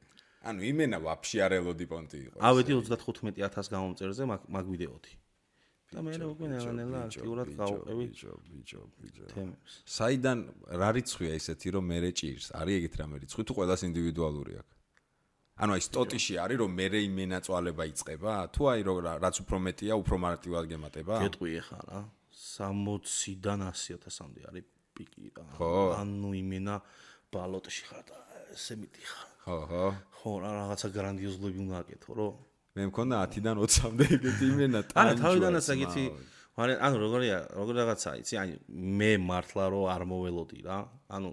ანუ იმენა ვაფშე არ ელოდი პონტი იყო ავედი 35000 გამომწერზე მაგ ვიდეოთი და მე უკვე ნელა აქტიურად გავუყევი ბიჭო თემებს საიდან რა რიცხვია ისეთი რომ მე ჭირს არის ეგეთ რამე რიცხვი თუ ყველას ინდივიდუალური აქვს ანუ აი სტოტიში არის რომ მე იმენა წვალება იწება თუ აი რაც უფრო მეტია უფრო მარტივად გემატება გეტყვი ახლა რა 60-დან 100000-მდე არის პიკი რა ანუ იმენა ბალოტში ხარ და ესე მიდიხარ ხო რა რაღაცა გრანდიოზულები უნდა აკეთო რომ მე მქონდა 10-დან 20-მდე ეგეთი იმენა არა თავიდანაც ეგეთი ანუ როგორ რაღაცა იცი აი მე მართლა რომ არ მოველოდი რა ანუ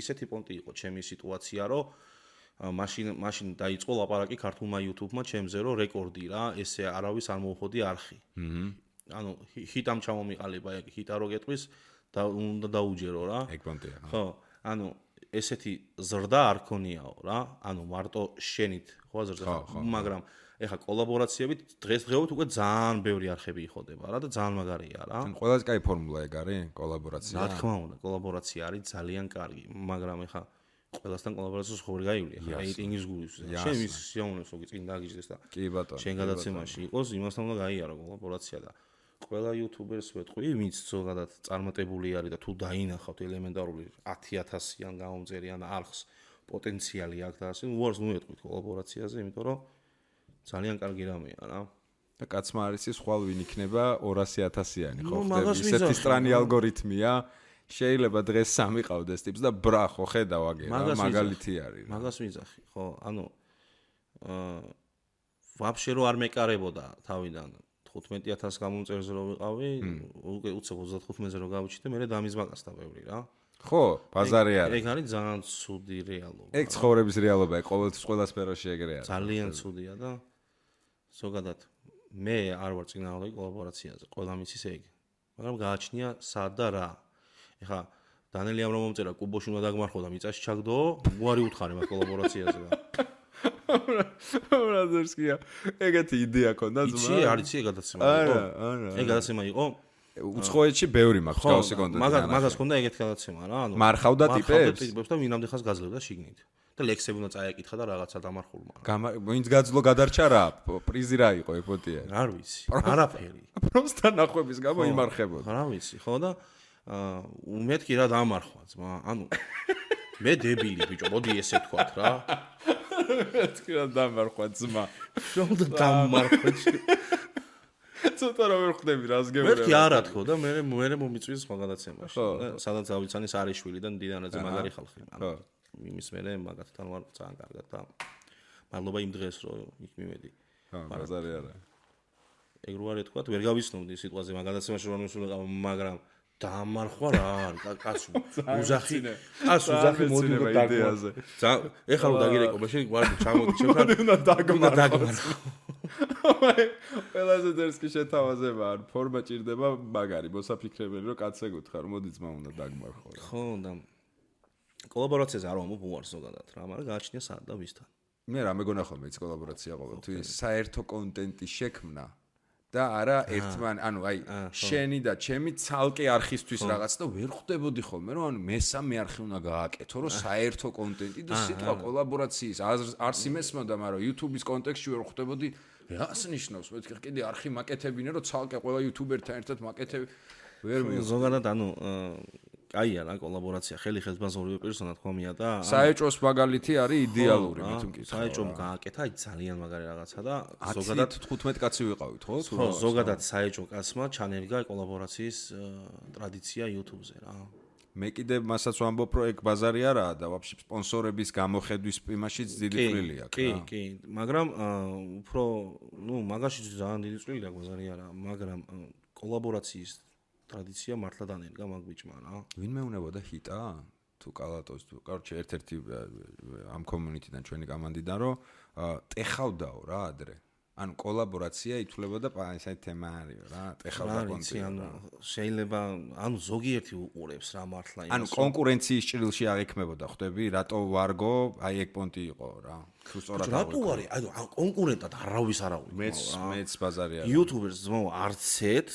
ისეთი პონტი იყო ჩემი სიტუაცია რომ მაშინ დაიწყო ლაპარაკი ქართულმა YouTube-მა ჩემზე რომ რეკორდი რა ესე არავის არ მოუხოდი არხი ანუ ჰიტამ ჩამომიყალიბა ეგ ჰიტა რო გეტყვის და უნდა დაუჯერო რა ეგ პონტია ხო ანუ ესეთი ზრდა არ ქონიაო რა. ანუ მარტო შენით ხო ზრდა, მაგრამ ეხა კოლაბორაციებით დღესდღეობით უკვე ძალიან ბევრი არხები იხოდება რა და ძალიან მაგარია რა. ან ყველაზე კაი ფორმულა ეგ არის კოლაბორაცია. რა თქმა უნდა, კოლაბორაცია არის ძალიან კარგი, მაგრამ ეხა ყველასთან კოლაბორაციას ხო ვერ გაივლი ახლა რეიტინგის გულს. შენ მის სიამოვნებს ოგი წინ დაგიჯდეს და კი ბატონო. შენ გადაცემაში იყოს, იმასთან უნდა გაიარო კოლაბორაცია და ყველა იუთუბერს ვეთქვი, ვინც ზოგადად წარმატებული არის და თუ დაინახავთ ელემენტარული 10,000-იან გამომწერიან არხს პოტენციალი აქვს და ასე, უარს მოეთქვით კოლაბორაციაზე, იმიტომ რომ ძალიან კარგი რამეა რა. და კაცმა არის ის ხვალ ვინ იქნება 200,000-იანი ხო ხდება ისეთი სტრანი ალგორითმია შეიძლება დღეს სამი ყავდეს ტიპს და ბრა ხო ხედავ აგერა მაგალითი არის რა მაგას ვიძახი ხო ანუ ვაფშე რო არ მეკარებოდა თავიდან 15,000 გამომწერზე რო ვიყავი უკვე უცებ 35-ზე რო გავიჩიტე მე დამიზმაკასდა ბევრი რა ხო ბაზარი არის ეგ არის ძალიან ცუდი რეალობა ეგ ცხოვრების რეალობაა ყოველთვის ყველა სფეროში ეგრე არის ძალიან ცუდია და ზოგადად მე არ ვარ წინააღმდეგ კოლაბორაციაზე ყველა მისის ეგ მაგრამ გააჩნია სად და რა ეხა დანელი ამ რომ მომწერა კუბოში უნდა დაგმარხო და მიწაში ჩაგდო უარი უთხარი მაგ კოლაბორაციაზე და რა ზერსკია ეგეთი იდეა ქონდა ძმა იცი არის ეგ გადაცემა იყო ეგ გადაცემა იყო უცხოეთში ბევრი მაქვს გავსი კონტენტი მაგას ქონდა ეგეთი გადაცემა რა ანუ მარხავდა ტიპებს და ვინამდე ხას გაძლევდა შიგნით და ლექსები უნდა წაეკითხა და რაღაცა დამარხულმა ვინც გაძლო გადარჩა რა პრიზი რა იყო ეგ ფოტია არ ვიცი არაფერი პროსტა ნახვების გამო იმარხებოდა რა ვიცი ხო და მეთქი რა დამარხვა ძმა ანუ მე დებილი ბიჭო მოდი ესე თქვათ რა მეთქი რა დამარხვა ძმა რა დამარხვა ცოტა რა ვერ ხვდები რას გეუბნები მეთქი არა თქო და მე მომიწვის სხვა გადაცემაში სადაც ავიცანის არიშვილიდან დიდანაძე მაგარი ხალხი ანუ იმის მერე მაგათთან ვარ ძალიან კარგად და მადლობა იმ დღეს რომ იქ მივედი ბაზარი არა ეგ რო არ ეთქვათ ვერ გავიცნობდი სიტყვაზე მაგადაცემაში რომ მისულიყავ მაგრამ დამარხვა რა კაცო უზახი მოდი იდეაზე ეხლა რომ დაგირეკო მაშინ ვარ ჩამოდი შეხარ უნდა დაგმარხო ყველაზე დერსკი შეთავაზება არ ფორმა ჭირდება მაგარი მოსაფიქრებელი რომ კაცზე გითხრა რომ მოდი ძმა უნდა დაგმარხო ხო და კოლაბორაციაზე არ ვამბობ უარს ზოგადად რა მაგრამ გააჩნია სად და ვისთან მე რა მეგონა ხოლმე ის კოლაბორაცია ყოველთვის საერთო კონტენტის შექმნა და არა ერთმან ანუ აი შენი და ჩემი ცალკე არხისთვის რაღაც და ვერ ხვდებოდი ხოლმე რომ ანუ მესამე არხი უნდა გააკეთო რომ საერთო კონტენტი და სიტყვა კოლაბორაციის არს იმესმოდა მაგრამ YouTube-ის კონტექსტში ვერ ხვდებოდი რას ნიშნავს მეთქი კიდე არხი მაკეთებინე რომ ცალკე ყველა YouTuber-თან ერთად მაკეთები ვერ მივხვდი ზოგადად ანუ კაია რა კოლაბორაცია ხელი ხელს ორივე პერსონა თქომია და საეჭვოს მაგალითი არის იდეალური მე თუ მკითხავ საეჭვომ გააკეთა აი ძალიან მაგარი რაღაცა და ზოგადად 15 კაცი ვიყავით ხო ხო ზოგადად საეჭვო კაცმა ჩანერგა კოლაბორაციის ტრადიცია YouTube-ზე რა მე კიდე მასაც ვამბობ რომ ეგ ბაზარი არაა და ვაფშე სპონსორების გამოხედვის იმაშიც დიდი წვლილი აქვს კი კი მაგრამ უფრო ნუ მაგაშიც ძალიან დიდი წვლილი აქვს ბაზარი არა მაგრამ კოლაბორაციის ტრადიცია მართლა დანერგა მაგ ბიჭმა რა. ვინმე უნებოდა ჰიტა? თუ კალატოს თუ კარჩე ერთ-ერთი ამ კომუნიტიდან ჩვენი კომანდიდან რომ ტეხავდაო რა ადრე. ანუ კოლაბორაცია ითვლებოდა ესეთი თემა არის რა, ტეხავდა კონტენტი. ანუ შეიძლება ანუ ზოგიერთი უყურებს რა მართლა იმას. ანუ კონკურენციის ჭრილში აღიქმებოდა ხვდები, რატო ვარგო, აი ეგ პონტი იყო რა. თუ სწორად აღიქმებოდა. რატო არის? ანუ კონკურენტად არავის არ აღვიქ. მეც ბაზარი არის. YouTubers ძმაო არც ერთ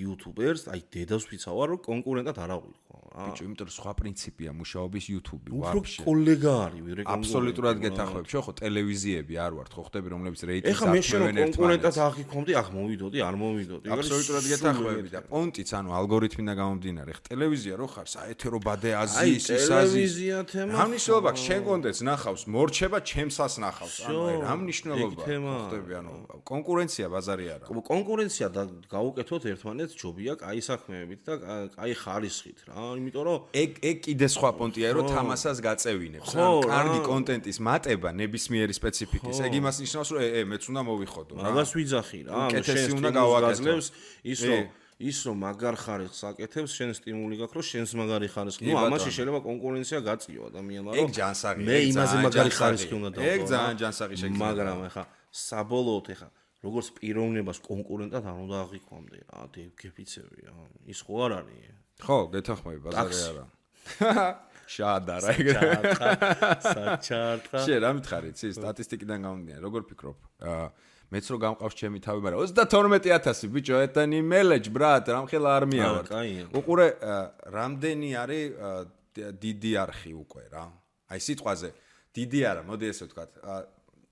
YouTubers, აი დედას ვიცავარ რომ კონკურენტად არ აღვიქ. ბიჭო, იმიტომ რომ სხვა პრინციპია მუშაობის YouTube-ი, ვაფშე. უფრო კოლეგა არის, ვერე კონკურენტი. აბსოლუტურად გეთახმებ, შო ხო ტელევიზიები არ ვართ, ხო ხდები რომლებიც რეიტინგს ეხა მე შენ კონკურენტად აღიქომდი, ახ მოვიდოდი, არ მოვიდოდი. აბსოლუტურად გეთახმები და პონტიც, ანუ ალგორითმიდან გამომდინარე, ხ ტელევიზია რო ხარ, საეთერო ბადე აზიის, ის აზიის. ტელევიზია თემა. რა მნიშვნელობა აქვს, შენ კონტენტს ნახავს, მორჩება ჩემსას ნახავს, ანუ რა მნიშვნელობა ხდები, ანუ კონკურენცია ბაზარი არა. კონკურენცია და გაუკეთოთ ერთმანეთს ჯობია, კაი საქმეებით და კაი ხარისხით რა. იმიტომ რომ ეგ კიდე სხვა პონტია რომ თამასას გაწევინებს ან კარგი კონტენტის მატება ნებისმიერი სპეციფიკის ეგ იმას ნიშნავს რომ მეც უნდა მოვიხოდო რა მაგას ვიძახი რა კეთესი უნდა გავაკეთოს ის რომ მაგარ ხარისხს აკეთებს შენ სტიმული გაქვს რომ შენს მაგარი ხარისხი ნუ ამაში შეიძლება კონკურენცია გაწიო ადამიანმა რომ ეგ ჯანსაღი მე იმაზე მაგარი ხარისხი უნდა დავყო ეგ ძალიან ჯანსაღი შეგიძლია მაგრამ ეხა საბოლოოდ ეხა როგორც პიროვნებას კონკურენტად არ უნდა აღიქვამდე რა გეფიცები რა ის ხო არ არის ხო, გეთახმები ბაზარი არა. შაადარა საჩარტა შე რა მითხარი იცი სტატისტიკიდან გამომდინარე როგორ ფიქრობ მეც რო გამყავს ჩემი თავი მაგრამ 32000 ბიჭო ეტანი მელეჯ ბრატ რამხელა არმია ვარ უყურე რამდენი არის დიდი არხი უკვე რა აი სიტყვაზე დიდი არა მოდი ესე ვთქვათ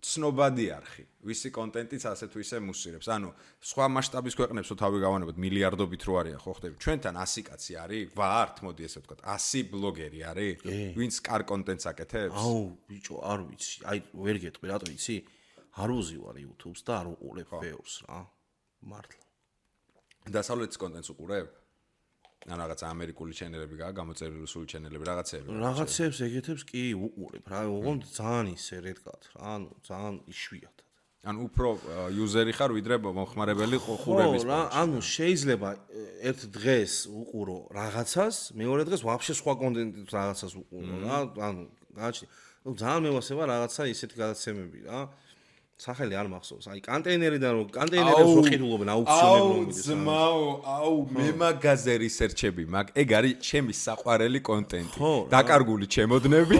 ცნობადი არხი ვისი კონტენტიც ასე თუ ისე მუსირებს ანუ სხვა მასშტაბის ქვეყნებს რო თავი გავანებოთ მილიარდობით რო არიან ხო ხდები ჩვენთან 100 კაცი არის ვართ მოდი ესე ვთქვათ 100 ბლოგერი არის ვინც კარ კონტენტს აკეთებს აუ ბიჭო არ ვიცი აი ვერ გეტყვი რატო იცი არ უზივარ YouTube-ს და არ უყურებ ბევრს რა მართლა დასავლეთის კონტენტს უყურებ ან რაღაც ამერიკული ჩენელები გაა გამოწერილი რუსული ჩენელები რაღაცებს ეგეთებს კი უყურებ რა ოღონდ ძალიან ისე რედკათ რა ანუ ძალიან იშვიათად ან უფრო იუზერი ხარ ვიდრე მომხმარებელი ყურების რა ანუ შეიძლება ერთ დღეს უყურო რაღაცას მეორე დღეს ვაფშე სხვა კონტენტის რაღაცას უყურო რა ანუ გაჩნი ძალიან მევასება რაღაცა ისეთი გადაცემები რა სახელი არ მახსოვს. აი კონტეინერიდან რომ კონტეინერებს ვყიდულობენ აუქციონებში. აუ მე მაგაზე რისერჩები მაგ ეგ არის ჩემი საყვარელი კონტენტი. დაკარგული ჩემოდნები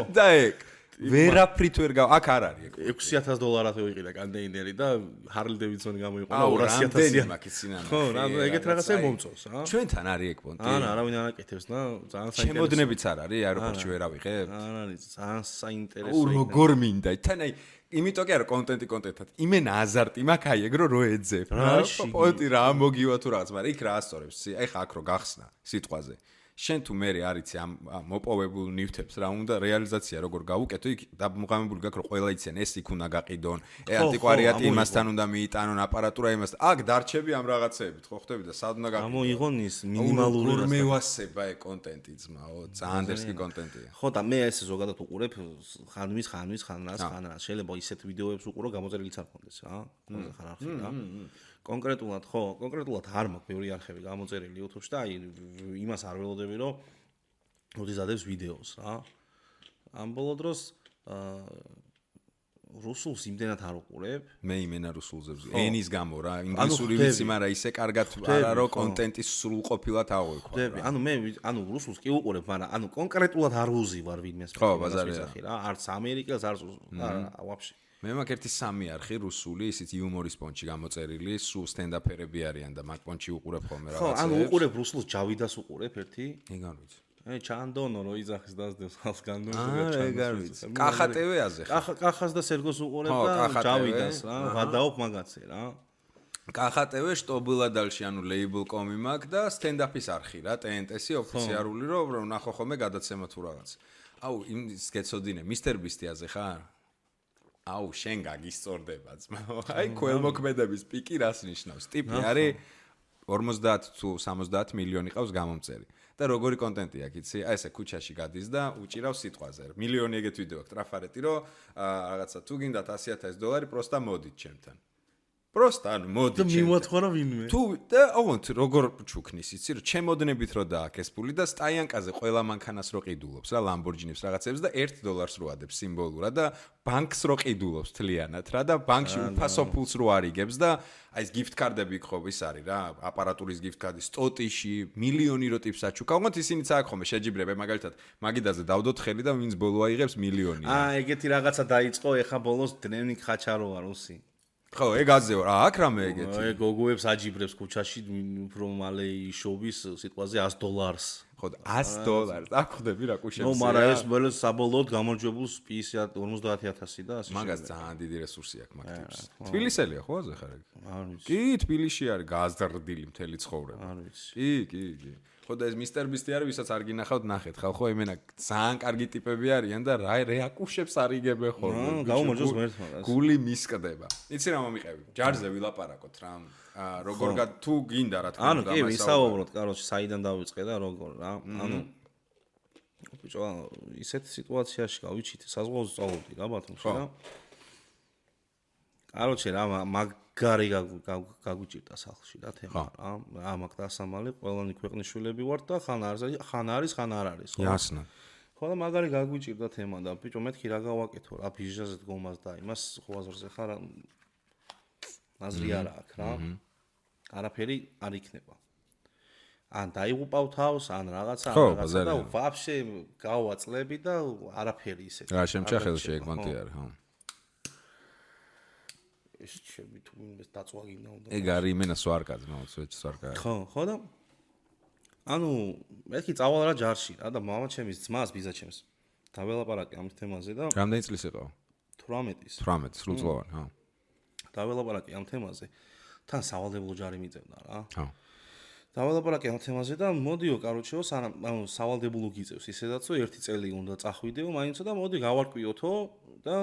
და ეგ ვერაფრით ვერ გავა აქ არ არის ეგ $6000 ვიყიდა კონტეინერი და ჰარლი დევიდსონი გამოიყო 200000 მაკის სინანა. ხო რა ეგეთ რაღაცა მომწონს რა. ჩვენთან არის ეგ პონტი. არა არავინ არ აკეთებს და ძალიან საინტერესო. ჩემოდნებიც არ არის აეროპორტში ვერ ავიღებ. არ არის ძალიან საინტერესო. როგორ მინდა თან აი იმიტომ კი არა კონტენტად იმენა აზარტი მაქვს აი ეგ რო ეძებ რა პონტი რა მოგივა თუ რაღაც მაგრამ იქ რა ასწორებს აი ხა აქ რო გახსნა სიტყვაზე შენ თუ მე არიცი ამ მოპოვებულ ნივთებს რა უნდა რეალიზაცია როგორ გავუკეთო იქ დამღამებული გაქვს რომ ყველა იციან ეს იქ უნდა გაყიდონ ანტიკვარიატი იმასთან უნდა მიიტანონ აპარატურა იმასთან აქ დარჩები ამ რაღაცეებით ხო ხდები და სად უნდა გაყიდონ გამოიღონ ის მინიმალური რა მევასება ეგ კონტენტი ძმაო ძალიან დერსკი კონტენტია ხო და მე ესე ზოგადად უყურებ ხან რას შეიძლება ისეთ ვიდეოებს უყურო გამოწერილიც არ მქონდეს რა ხან არხი რა კონკრეტულად არ მაქვს ბევრი არხები გამოწერილი YouTube-ში და აი იმას არ ველოდები რომ ოდიზადებს ვიდეოს რა ამ ბოლო დროს რუსულს იმდენად არ უყურებ მე იმენა რუსულზე ენის გამო რა ინგლისური ვიცი მაგრამ ისე კარგად არა რომ კონტენტის სრულყოფილად აღვიქვა ანუ მე რუსულს კი უყურებ მაგრამ ანუ კონკრეტულად არ უზივარ ვინმეს ხო ბაზარია რა არც ამერიკელს არც ვაფშე მე მაქვს ერთი სამი არხი რუსული, ისიც იუმორის პონჩი გამოწერილი, სულ სტენდაპერები არიან და მაგ პონჩი უყურებ ხოლმე რაღაცებს. ხო, ანუ უყურებ რუსულს ჯავიდას უყურებ ერთი? ეგ არ ვიცი. ჩანდონო რო იძახის დასდევს ხალხს განდონს ეგ არ ვიცი. კახატევეაზე ხარ. კახას და სერგოს უყურებ და ჯავიდას რა, ვადაობ მაგაცე რა. კახატევე შტობილადალში ანუ label.com-ი მაქვს და სტენდაპის არხი რა, TNT-ი ოფიციალური რომ ნახო ხოლმე გადაცემა თუ რაღაც. აუ იმის გეცოდინე, Mr. Beast-აზე ხარ? აუ შენ გაგისწორდება ძმაო აი ქველმოქმედების პიკი რას ნიშნავს ტიპი არის 50 თუ 70 მილიონი ყავს გამომწერი და როგორი კონტენტი აქვს იცი აი ესე ქუჩაში გადის და უჭირავს სიტყვაზე მილიონი ეგეთ ვიდეო აქვს ტრაფარეტი რომ რაღაცა თუ გინდათ $100,000 პროსტა მოდით ჩემთან პროსტა ანუ მოდი და მიმოთხოვა ვინმე თუ და ოღონდ როგორ ჩუქნის იცი რომ ჩემოდნებით რო დააქეს პული და სტაიანკაზე ყველა მანქანას რო ყიდულობს რა ლამბორჯინებს რაღაცებს და $1 რო ადებს სიმბოლურად და ბანკს რო ყიდულობს თლიანად რა და ბანკში უფასო ფულს რო არიგებს და აი ეს gift card-ები ხო ის არის რა აპარატურის gift card-ი სტოტიში მილიონი რო ტიპს აჩუქა უგონთ ისინიც აქ ხომ შეჯიბრება მაგალითად მაგიდაზე დავდოთ ხელი და ვინც ბოლო აიღებს მილიონი ეგეთი რაღაცა დაიწყო ეხა ბოლოს დნევნიკ ხაჩაროვა რუსი ხო ეგ აზეო რა აქ რამე ეგეთი ეგ გოგოებს აჯიბრებს ქუჩაში უფრო მალე შოვის სიტყვაზე $100 ხო $100 აქ ხდები რა კუშებს ნუ მაგრამ ეს მოლე საბოლოოდ გამარჯვებულს 50,000 და ასე მაგას ძალიან დიდი რესურსი აქვს მაგ ტიპს თბილისელია ხო აზე ხარ ეგ არ ვიცი კი თბილისში არის გაზრდილი მთელი ცხოვრება არ ვიცი კი ხო და ეს Mr. Beast-ი არის ვისაც არ გინახავთ ნახეთ ხალხო იმენა ძალიან კარგი ტიპები არიან და რა აკუშებს არიგებენ ხოლმე გაუმარჯოს მერტმა გული მისკდება იცი რა მომიყევი ჯარზე ვილაპარაკოთ რა როგორ თუ გინდა რა თქმა უნდა ანუ კი ვისაუბროთ კაროჩი საიდან დავიწყე და როგორ რა ანუ ბიჭო ისეთ სიტუაციაში გავიჩიტე საზღვაოზე სწავლობდი რა ბათუმში რა კაროჩი რა მაგარი გაგვიჭირდა სახლში რა თემა რა მაგ დასამალი ყველანი ქვეყნის შვილები ვართ და ხან არის ხან არ არის ხო იასნა ხო და მაგარი გაგვიჭირდა თემა და ბიჭო მეთქი რა გავაკეთო რა ბიჟაზე დგომას და იმას ხო აზრზე ხარ აზრი არა აქვს რა არაფერი არ იქნება ან დაიღუპავ თავს, ან რაღაცა და ვაფშე გავაწლები და არაფერი ისეთი. რა შემჭა ხელში ეგ მონტი არის, ხო. ეს ჩემი თუ მინდა დაწვაგინა უნდა. ეგ არის იმენა სვარკაც, მოცვეჩ სვარკა. ხო და ანუ მეთქი წავალ რა ჯარში რა და მამა ჩემის ძმას ბიზა ჩემს. დაველაპარაკე ამ თემაზე და რამდენი წლის იყო? 18-ის. 18 სრულწლოვანი, ხო. დაველაპარაკე ამ თემაზე. თან სავალდებულო ჯარი მიწევდა რა. ხო. დაველაპარაკე ამ თემაზე და მოდიო, კაროჩეო, ანუ სავალდებულო გიწევს ისედაც, რომ 1 წელი უნდა წახვიდეო, მაინც და მოდი გავარკვიოთო და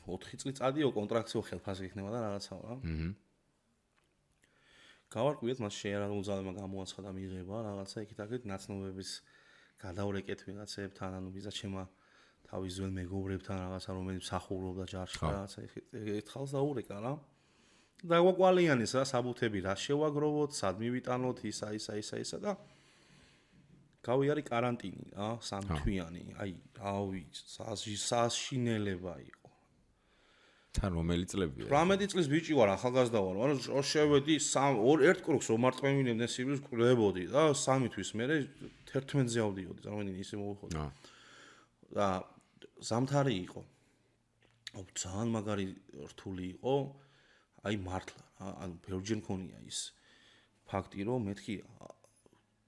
4 წელი წადიო კონტრაქტიო ხელფასი იქნება და რაღაცაო რა. გავარკვიეთ, მას შეერა უძალება გამოაცხადა მიღება, რაღაცა იქით-აქეთ ნაცნობების გადავრეკეთ ვიღაცებთან, ანუ ბიზა ჩემა თავის ძველ მეგობრებთან რაღაცა რომელიც მსახურობდა ჯარში რაღაცა ერთხელს დაურეკა რა. დაგვაკვალიანეს რა საბუთები რა შევაგროვოთ, სად მივიტანოთ, ისა და გავიარე კარანტინი რა, 3 თვიანი. აი, რავი, საშინელება იყო. თან რომელი წლებია? 18 წლის ბიჭი ვარ, ახალგაზრდა ვარ. ანუ შევედი 1 კრუგს ომარტყმევინებდნენ სიბილს კლებოდი და 3 თვის მერე 11-ზე ავდიოდი, წარმოიდგინე ისე მოვიხოდი. და ზამთარი იყო. ძალიან მაგარი რთული იყო. აი მართლა რა, ანუ ბევრჯერ მქონია ის ფაქტი, რომ მეთქი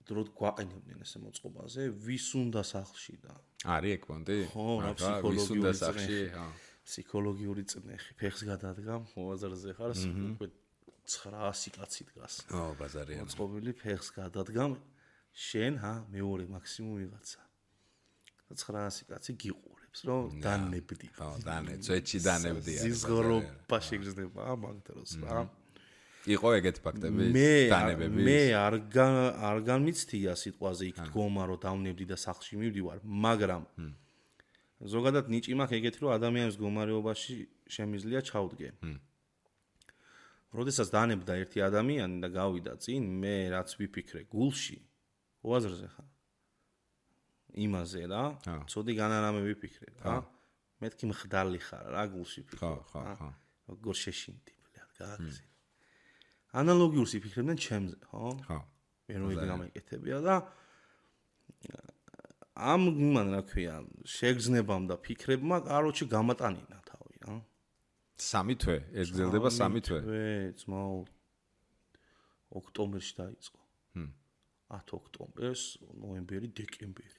დროდ გვაყენებდნენ ესე მოწყობაზე, ვის უნდა სახლში და არის ეგ პონტი? ხო, რა ფსიქოლოგიური სახლში, ხო. ფსიქოლოგიური წნეხი, ფეხს გადადგა, მოვაზარზე ხარ, უკვე 900 კაცი დგას. ო, ბაზარია. მოწყობილი ფეხს გადადგა, შენ მეორე მაქსიმუმ ვიღაცა. 900 კაცი გიყურებს, რომ დანებდი. ხო, ძვეთში დანებდია. ზიზღრობა შეგრძნება მაგ დროს რა. იყო ეგეთი ფაქტები დანებების? მე არ განმიცდია სიტყვაზე იქ დგომა, რომ დავნებდი და სახლში მივდივარ, მაგრამ ზოგადად ნიჭი მაქვს ეგეთი, რომ ადამიანის მდგომარეობაში შემიძლია ჩავდგე. როდესაც დანებდა ერთი ადამიანი და გავიდა წინ, მე რაც ვიფიქრე გულში, უაზრზე ხარ. იმაზე რა, ცოდი განარამე ვიფიქრე რა. მეთქი მხდალი ხარ რა გულში ფიქრობ. ხო. როგორ შეშინდი, ბლად, გააგზავნე. ანალოგიურს იფიქრებდნენ ჩემზე, ხო? ხო. მე რომ იგი გამეკეთებია და ამ იმან რა ქვია, შეგრძნებამ და ფიქრებმა, კაროჩი გამატანინა თავი რა. 3 თვე, ეს გრძელდება 3 თვე. ძმაო, ოქტომბერში დაიწყო. 10 ოქტომბერს, ნოემბერი, დეკემბერი.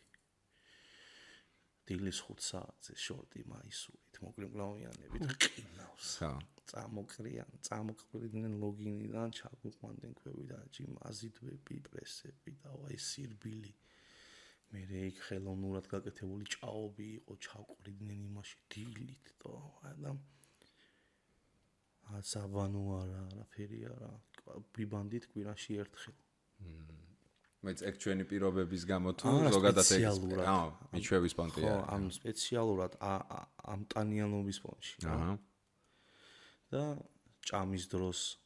დილის 5 საათზე შორტი მაისურით, მოკლემკლავიანებით ყინავს. ხო. წამოყრიდნენ ლოგინიდან, ჩაგვიყვანდნენ ქვევიდან, ჯიმაზიდვები, პრესები და აი სირბილი. მე იქ ხელოვნურად გაკეთებული ჭაობი იყო, ჩავყრიდნენ იმაში დილით და აცაბანო არაფერი არა, ბიბანდით კვირაში ერთხელ. მეც ეგ ჩვენი პირობების გამო თუ ზოგადად ეგ მიჩვევის პონტია. ხო, ამ სპეციალურად ამტანიანობის პონტში. აჰა. და ჭამის დროს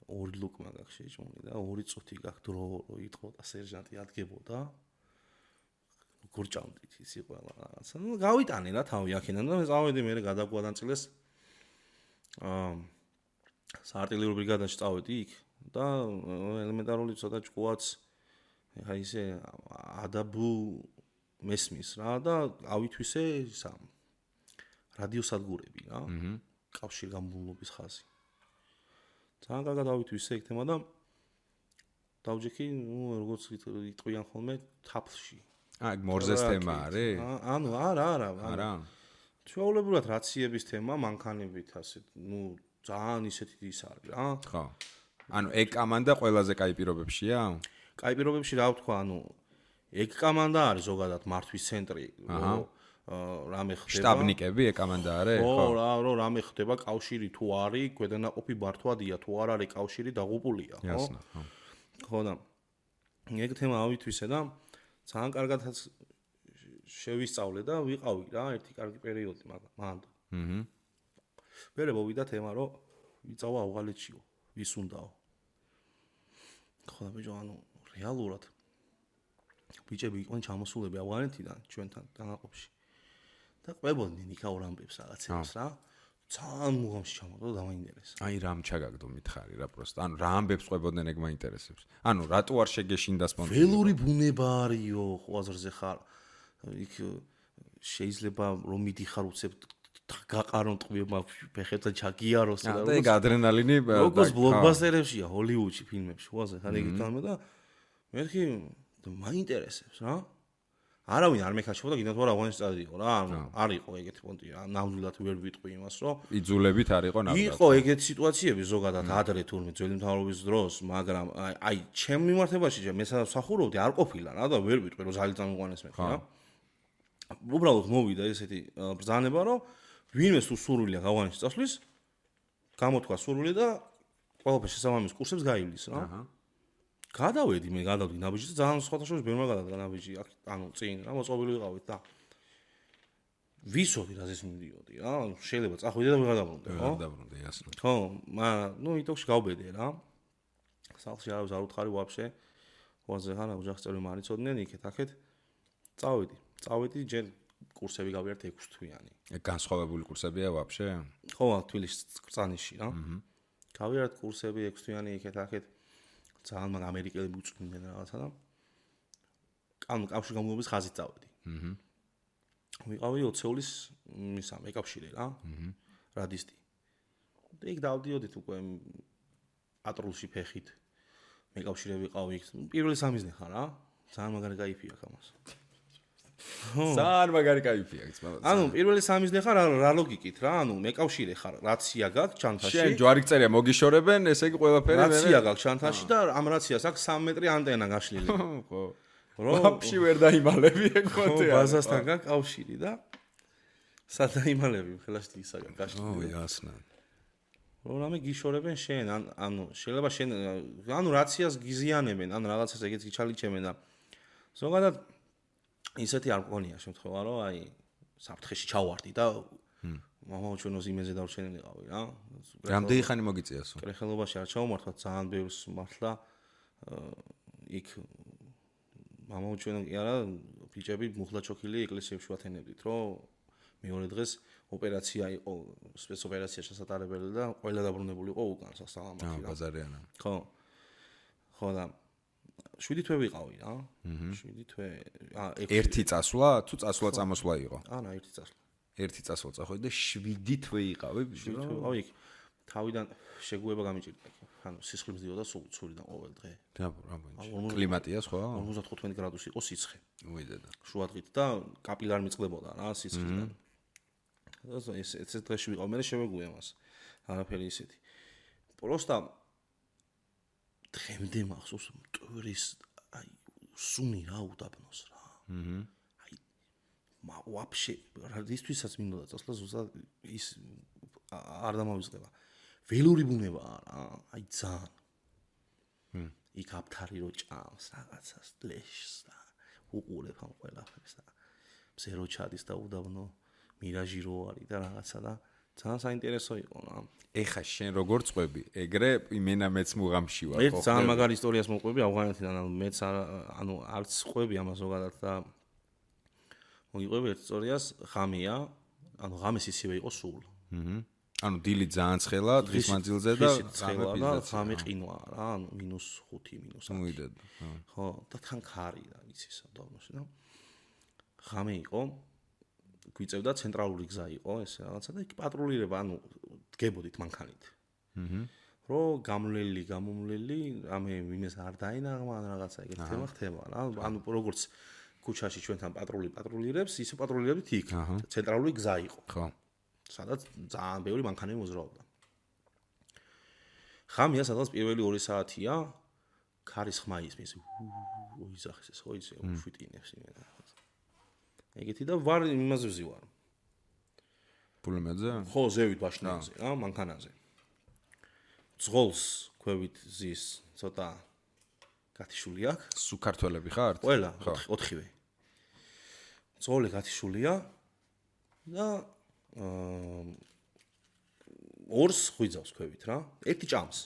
2 ლუკმა გაქვს შეჭმული და 2 წუთი გაქვს დრო რო იტყოდა სერჟანტი ადგებოდა. როგორ ჭამდით ისი ყველა რაღაცა. ნუ გავიტანე რა თავი აქედან და მე წავედი მე გადაგვადანწილეს საარტილერიო ბრიგადაში წავედი იქ და ელემენტარული ცოტა ჭკუაც ხა ისე ადაბუ მესმის რა და ავითვისე ისა რადიოსადგურები რა. კავშირგაბმულობის ხაზი. ძალიან კარგად ავითვისე ეგ თემა და დავჯექი, ნუ როგორც იტყვიან ხოლმე თაფლში. ეგ მორზეს თემა არის? ანუ არა. ჩვეულებრივად რაციების თემა მანქანებით ასე, ნუ ძალიან ისეთი ის არის რა. ხო. ანუ ეგ კამანდა ყველაზე კაი პირობებშია? კაი პირობებში რა ვთქვა, ანუ ეგ კამანდა არის ზოგადად მართვის ცენტრი, რამე ხდება. შტაბნიკები ეგ კამანდა არის? ხო, რამე ხდება, კავშირი თუ არის, ქვედანაყოფი ბართვადია, თუ არ არის კავშირი დაღუპულია, ხო? Ясно, ხო. ხო და ეგ თემა ავითვისე და ძალიან კარგადაც შევისწავლე და ვიყავი რა ერთი კარგი პერიოდი მანდ. მერე მოვიდა თემა რომ ვიწავა ავღალეთშიო, ვის უნდაო. ხო და ბიჭო, ანუ რეალურად ბიჭები იყვნენ ჩამოსულები ავღანეთიდან ჩვენთან დანაყოფში. და ყვებოდნენ იქაურ ამბებს რაღაცებს რა. ძალიან მუღამში ჩამოვიდა და დამაინტერესა. აი რამ ჩაგაგდო მითხარი რა პროსტა. ანუ რა ამბებს ყვებოდნენ ეგ მაინტერესებს. ანუ რატო არ შეგეშინდა სპონსორი? ველური ბუნება არისო, ყვაზრზე ხარ. იქ შეიძლება რომ მიდიხარ უცებ გაყარონ ტყვიობა ფეხებთან ჩაგიაროს და ეგ ადრენალინი როგორც ბლოკბასტერებშია ჰოლივუდში ფილმებში ყვაზე ხარ ეგ გამო და მერქი მაინტერესებს რა. არავინ არ მეკაჩობდა გინდა თუ არა აღნიშნე წადიო რა ანუ არ იყო ეგეთი პონტი რა ნამდვილად ვერ ვიტყვი იმას რომ იძულებით არ იყო ნამდვილად იყო ეგეთი სიტუაციები ზოგადად ადრე თურმე ძველი მთავრობის დროს მაგრამ აი ჩემ მიმართებაში მე სამსახურობდი არ ყოფილა რა და ვერ ვიტყვი რომ ზალი წამიყვანეს მე რა უბრალოდ მოვიდა ესეთი ბრძანება რომ ვინმე თუ სურვილია გავანიშნოს წასვლის გამოთქვა სურვილი და ყველაფერს შესაბამის კურსებს გაივლის რა გადავედი მე გადავდი ნაბიჯი და ძალიან სხვადასხვა ბევრმა გადადგა ნაბიჯი ანუ წინ რა მოწყობილი ვიყავით და ვისოდი რაზეც მივდიოდი რა შეიძლება წახვიდე და ვიღადაბრუნდე ხო გადაბრუნდე ясно ხო მაგრამ ნუ იტოქში გავბედე რა სახლში არავის არ უთხარი ვაფშე ვაზე ხარ ოჯახწევრი მარიცოდნენ იქეთ აქეთ წავედი ჯერ კურსები გავიარეთ 6 თვიანი ეგ განსხვავებული კურსებია ვაფშე ხო თბილისში კრწანიში რა გავიარეთ კურსები 6 თვიანი იქეთ აქეთ ძალიან მაგ ამერიკელები უწვდნენ რაღაცა და ანუ კავშირ გამგებლობის ხაზით წავედი. ვიყავი ოცეულის მისა მეკავშირე რა. რადისტი. და იქ დავდიოდით უკვე პატრულში ფეხით. მეკავშირე ვიყავი იქ. პირველი სამიზნე ხარ რა. ძალიან მაგარი кайფი აქვს ამას. ძალიან მაგარი кайფი აქვს მაგრამ. ანუ პირველი სამიზნე ხარ რა ლოგიკით რა. ანუ მეკავშირე ხარ, რაცია გაქვს ჩანთაში. შენ ჯვარი წერია მოგიშორებენ, ესე იგი ყველაფერი მე. რაცია გაქვს ჩანთაში და ამ რაციას აქვს 3 მეტრი ანტენა გაშლილი. ხო. ვაფშე ვერ დაიმალები ეგ მოწე. ხო, ბაზასთან გაქვს კავშირი და სადაიმალები ხელაშთი ისაგან გაშლილი. ო, ясно. რამე გიშორებენ შენ, ანუ შეიძლება შენ ანუ რაციას გიზიანებენ, ან რაღაცას ეგეც გიჩალიჩემენ და ზოგადად ისეთი არ მქონია შემთხვევა, რომ აი საფრთხეში ჩავარდი და მამაო ჩვენოს იმეზე დავრჩენილიყავი რა. რამდენი ხანი მოგიწიასო? კრეხელობაში არ ჩავმართვა, ძალიან ბევრს მართლა იქ მამაო ჩვენ კი არა, ბიჭები მუხლა ჩოქილი ეკლესიებში ვათენებდით, რომ მეორე დღეს ოპერაცია იყო, სპეცოპერაცია შესატარებელი და ყველა დაბრუნებული იყო უკან სასალამათი რა. ბაზარიანა. ხო. ხო და 7 თვე ვიყავი რა. 7 თვე. ერთი წასვლა თუ წასვლა წამოსვლა იყო? არა, ერთი წასვლა. ერთი წასვლა წახვედი და 7 თვე იყავი. აი იქ თავიდან შეგუება გამიჭირდა. ანუ სისხლი მძიოდა სულიდან ყოველ დღე. რა ბუნი. კლიმატია სხვა? 55 გრადუსი იყო სიცხე. უიდედა. შუადღით და კაპილარი მიწყდებოდა რა სისხლიდან. ეს დღეში ვიყავ, მე შევეგუე მას. არაფერი ისეთი. პროსტა დღემდე მახსოვს მტვრის აი სუნი რა უდაბნოს რა. აი ვაფშე რადისთვისაც მინდოდა წასვლა ზუსტად ის არ დამავიწყდება. ველური ბუნებაა რა, აი ძალიან. იქ აფთარი რო ჭამს რაღაცას ლეშს და უყურებ ამ ყველაფერს და მზე რო ჩადის და უდაბნო მირაჟი რო არის და რაღაცა და ძალიან საინტერესო იყო რა. ეხა შენ როგორ წყვები? ეგრე იმენა მეც მუღამში ვარ, ხო? ერთ ძალიან მაგარი ისტორიას მოყვები ავღანეთიდან, ანუ მეც ანუ არც ყვები ამას ზოგადად და მოგიყვები ერთ ისტორიას, ღამეა, ანუ ღამეს ისევე იყო სულ. ანუ დილი ძალიან ცხელა, დღის მანძილზე და ღამე ყინვა რა, ანუ -5, -10. მოიდედა. ხო, და თან ქარი რა, იცი სადავნოში და ღამე იყო გვიწევდა ცენტრალური გზა იყო ეს რაღაცა და იქ პატრულირება, ანუ დგებოდით მანქანით. რო გამომლელი, რამე ვინეს არ დაინაღმა ან რაღაცა ეგეთი თემა ხდება რა. ანუ როგორც ქუჩაში ჩვენთან პატრულირებს, ისე პატრულირებდით იქ. ცენტრალური გზა იყო. ხო. სადაც ძალიან ბევრი მანქანები მოძრაობდა. ღამეა სადაც პირველი 2 საათია ქარის ხმა ისმის. ოიზახეს ეს ხო ისე უშვიტინებს იმენა. ეგეთი და ვარ იმაზე ვზივარ. პულემეზე? ხო, ზევით ბაშნაზე, რა, მანქანაზე. ძღოლს ქვევით ზის ცოტა გათიშული აქვს. სუქართველები ხართ? ყველა, 4-ვე. ძღოლი გათიშულია და ორს ხვიძავს ქვევით რა. ერთი ჭამს.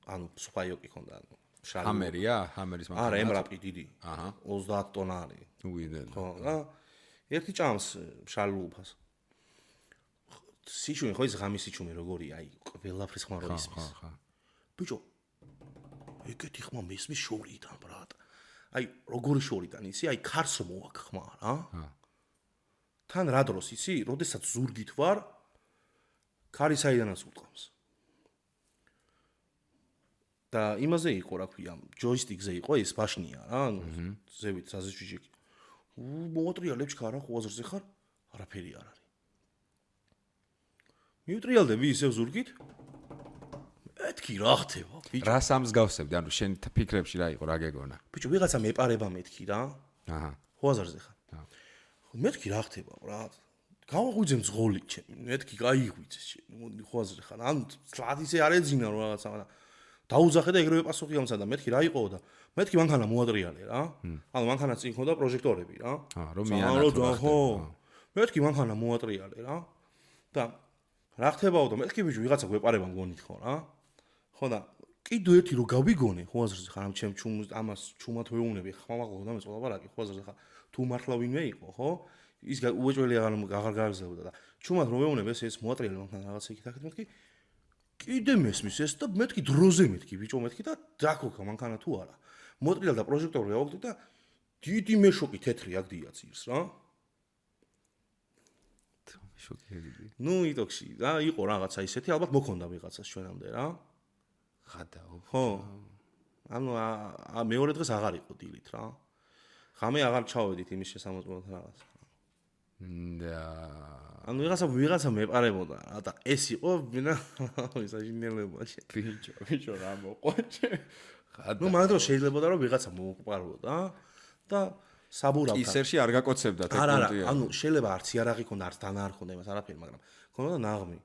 ანუ სუპაიოკი ხონდა, ანუ შალი. ჰამერია? ჰამერის მანქანა? არა, ემრაპი დიდი. 30 ტონა არის. უიდედა. ხო, რა. ერთი ჭამს შალულფას. სიჩუმე ხო ის ღამის სიჩუმე როგორია, აი ყველაფრის ხმა რო ისმის. ბიჭო, ეგეთი ხმა მესმის შორიდან, ბრატ. აი როგორი შორიდან იცი, აი ქარს მოაქ ხმა რა. თან რა დროს იცი, როდესაც ზურგით ვარ, ქარი საიდანაც უტყავს. და იმაზე იყო რა ქვია, ჯოისტიკზე იყო ეს ბაშნია რა, ზევით საზეჭიჭი. მოუტრიალებ ჩქარა ხვაზრზე ხარ, არაფერი არ არის. მიუტრიალდები ისევ ზურგით? მეთქი რა ხდება, ბიჭო. რა სამსგავსებდი, ანუ შენ ფიქრებში რა იყო, რა გეგონა? ბიჭო, ვიღაცა მეპარება მეთქი რა. აჰა. ხვაზრზე ხარ. მეთქი რა ხდება, რა. გავაღვიძე მძღოლი ჩემი, მეთქი გაიღვიძე ჩემი, ხვაზრზე ხარ. ანუ თლად ისე არ ეძინა რომ რაღაცა და დაუძახე და ეგრევე პასუხი ამცა და მეთქი რა იყო და მეთქი მანქანა მოატრიალე რა. ანუ მანქანა წინ ხონდა პროჟექტორები რა. რომ მიანათო ხო. მეთქი მანქანა მოატრიალე რა. და რა ხდებაო და მეთქი ბიჭო ვიღაცა გვეპარება მგონით ხო რა. ხო და კიდე ერთი რომ გავიგონე ხვაზრზე ხარ ამ ჩემ ჩუმს ამას ჩუმად ვეუბნები ხმამაღლა და მეწყობა ლაპარაკი ხვაზრზე ხარ თუ მართლა ვინმე იყო ხო ის უეჭველი აღარ გააგზავნოდა და ჩუმად რომ ვეუბნები ეს მოატრიალე მანქანა რაღაცა იქით აქეთ მეთქი კიდე მესმის ეს და მეთქი დროზე მეთქი ბიჭო მეთქი და დაქოქა მანქანა თუ არა მოატრიალე და პროჟექტორი ავაგდე და დიდი მეშოკი თეთრი აქ დიაცირს რა შოკი. ნუ იტოქში რა იყო რაღაცა ისეთი ალბათ მოქონდა ვიღაცას ჩვენამდე რა ხადაო. ხო. ანუ მეორე დღეს აღარ იყო დილით რა. ღამე აღარ ჩავედით იმის შესამოწმოთ რაღაც. და ანუ ვიღაცა მეპარებოდა და ეს იყო ვინა ისაჟინელებაში. ბიჭო რა მოყვაჭე. ნუ მაგ დროს შეიძლებოდა რომ ვიღაცა მოუყარებოდა და საბურავდა. ისერში არ გაკოცებდა ტექნოლოგია. ანუ შეიძლება არც იარაღი ქონდა, არც დანა არ ქონდა იმას არაფერი, მაგრამ ქონდა ნაღმი.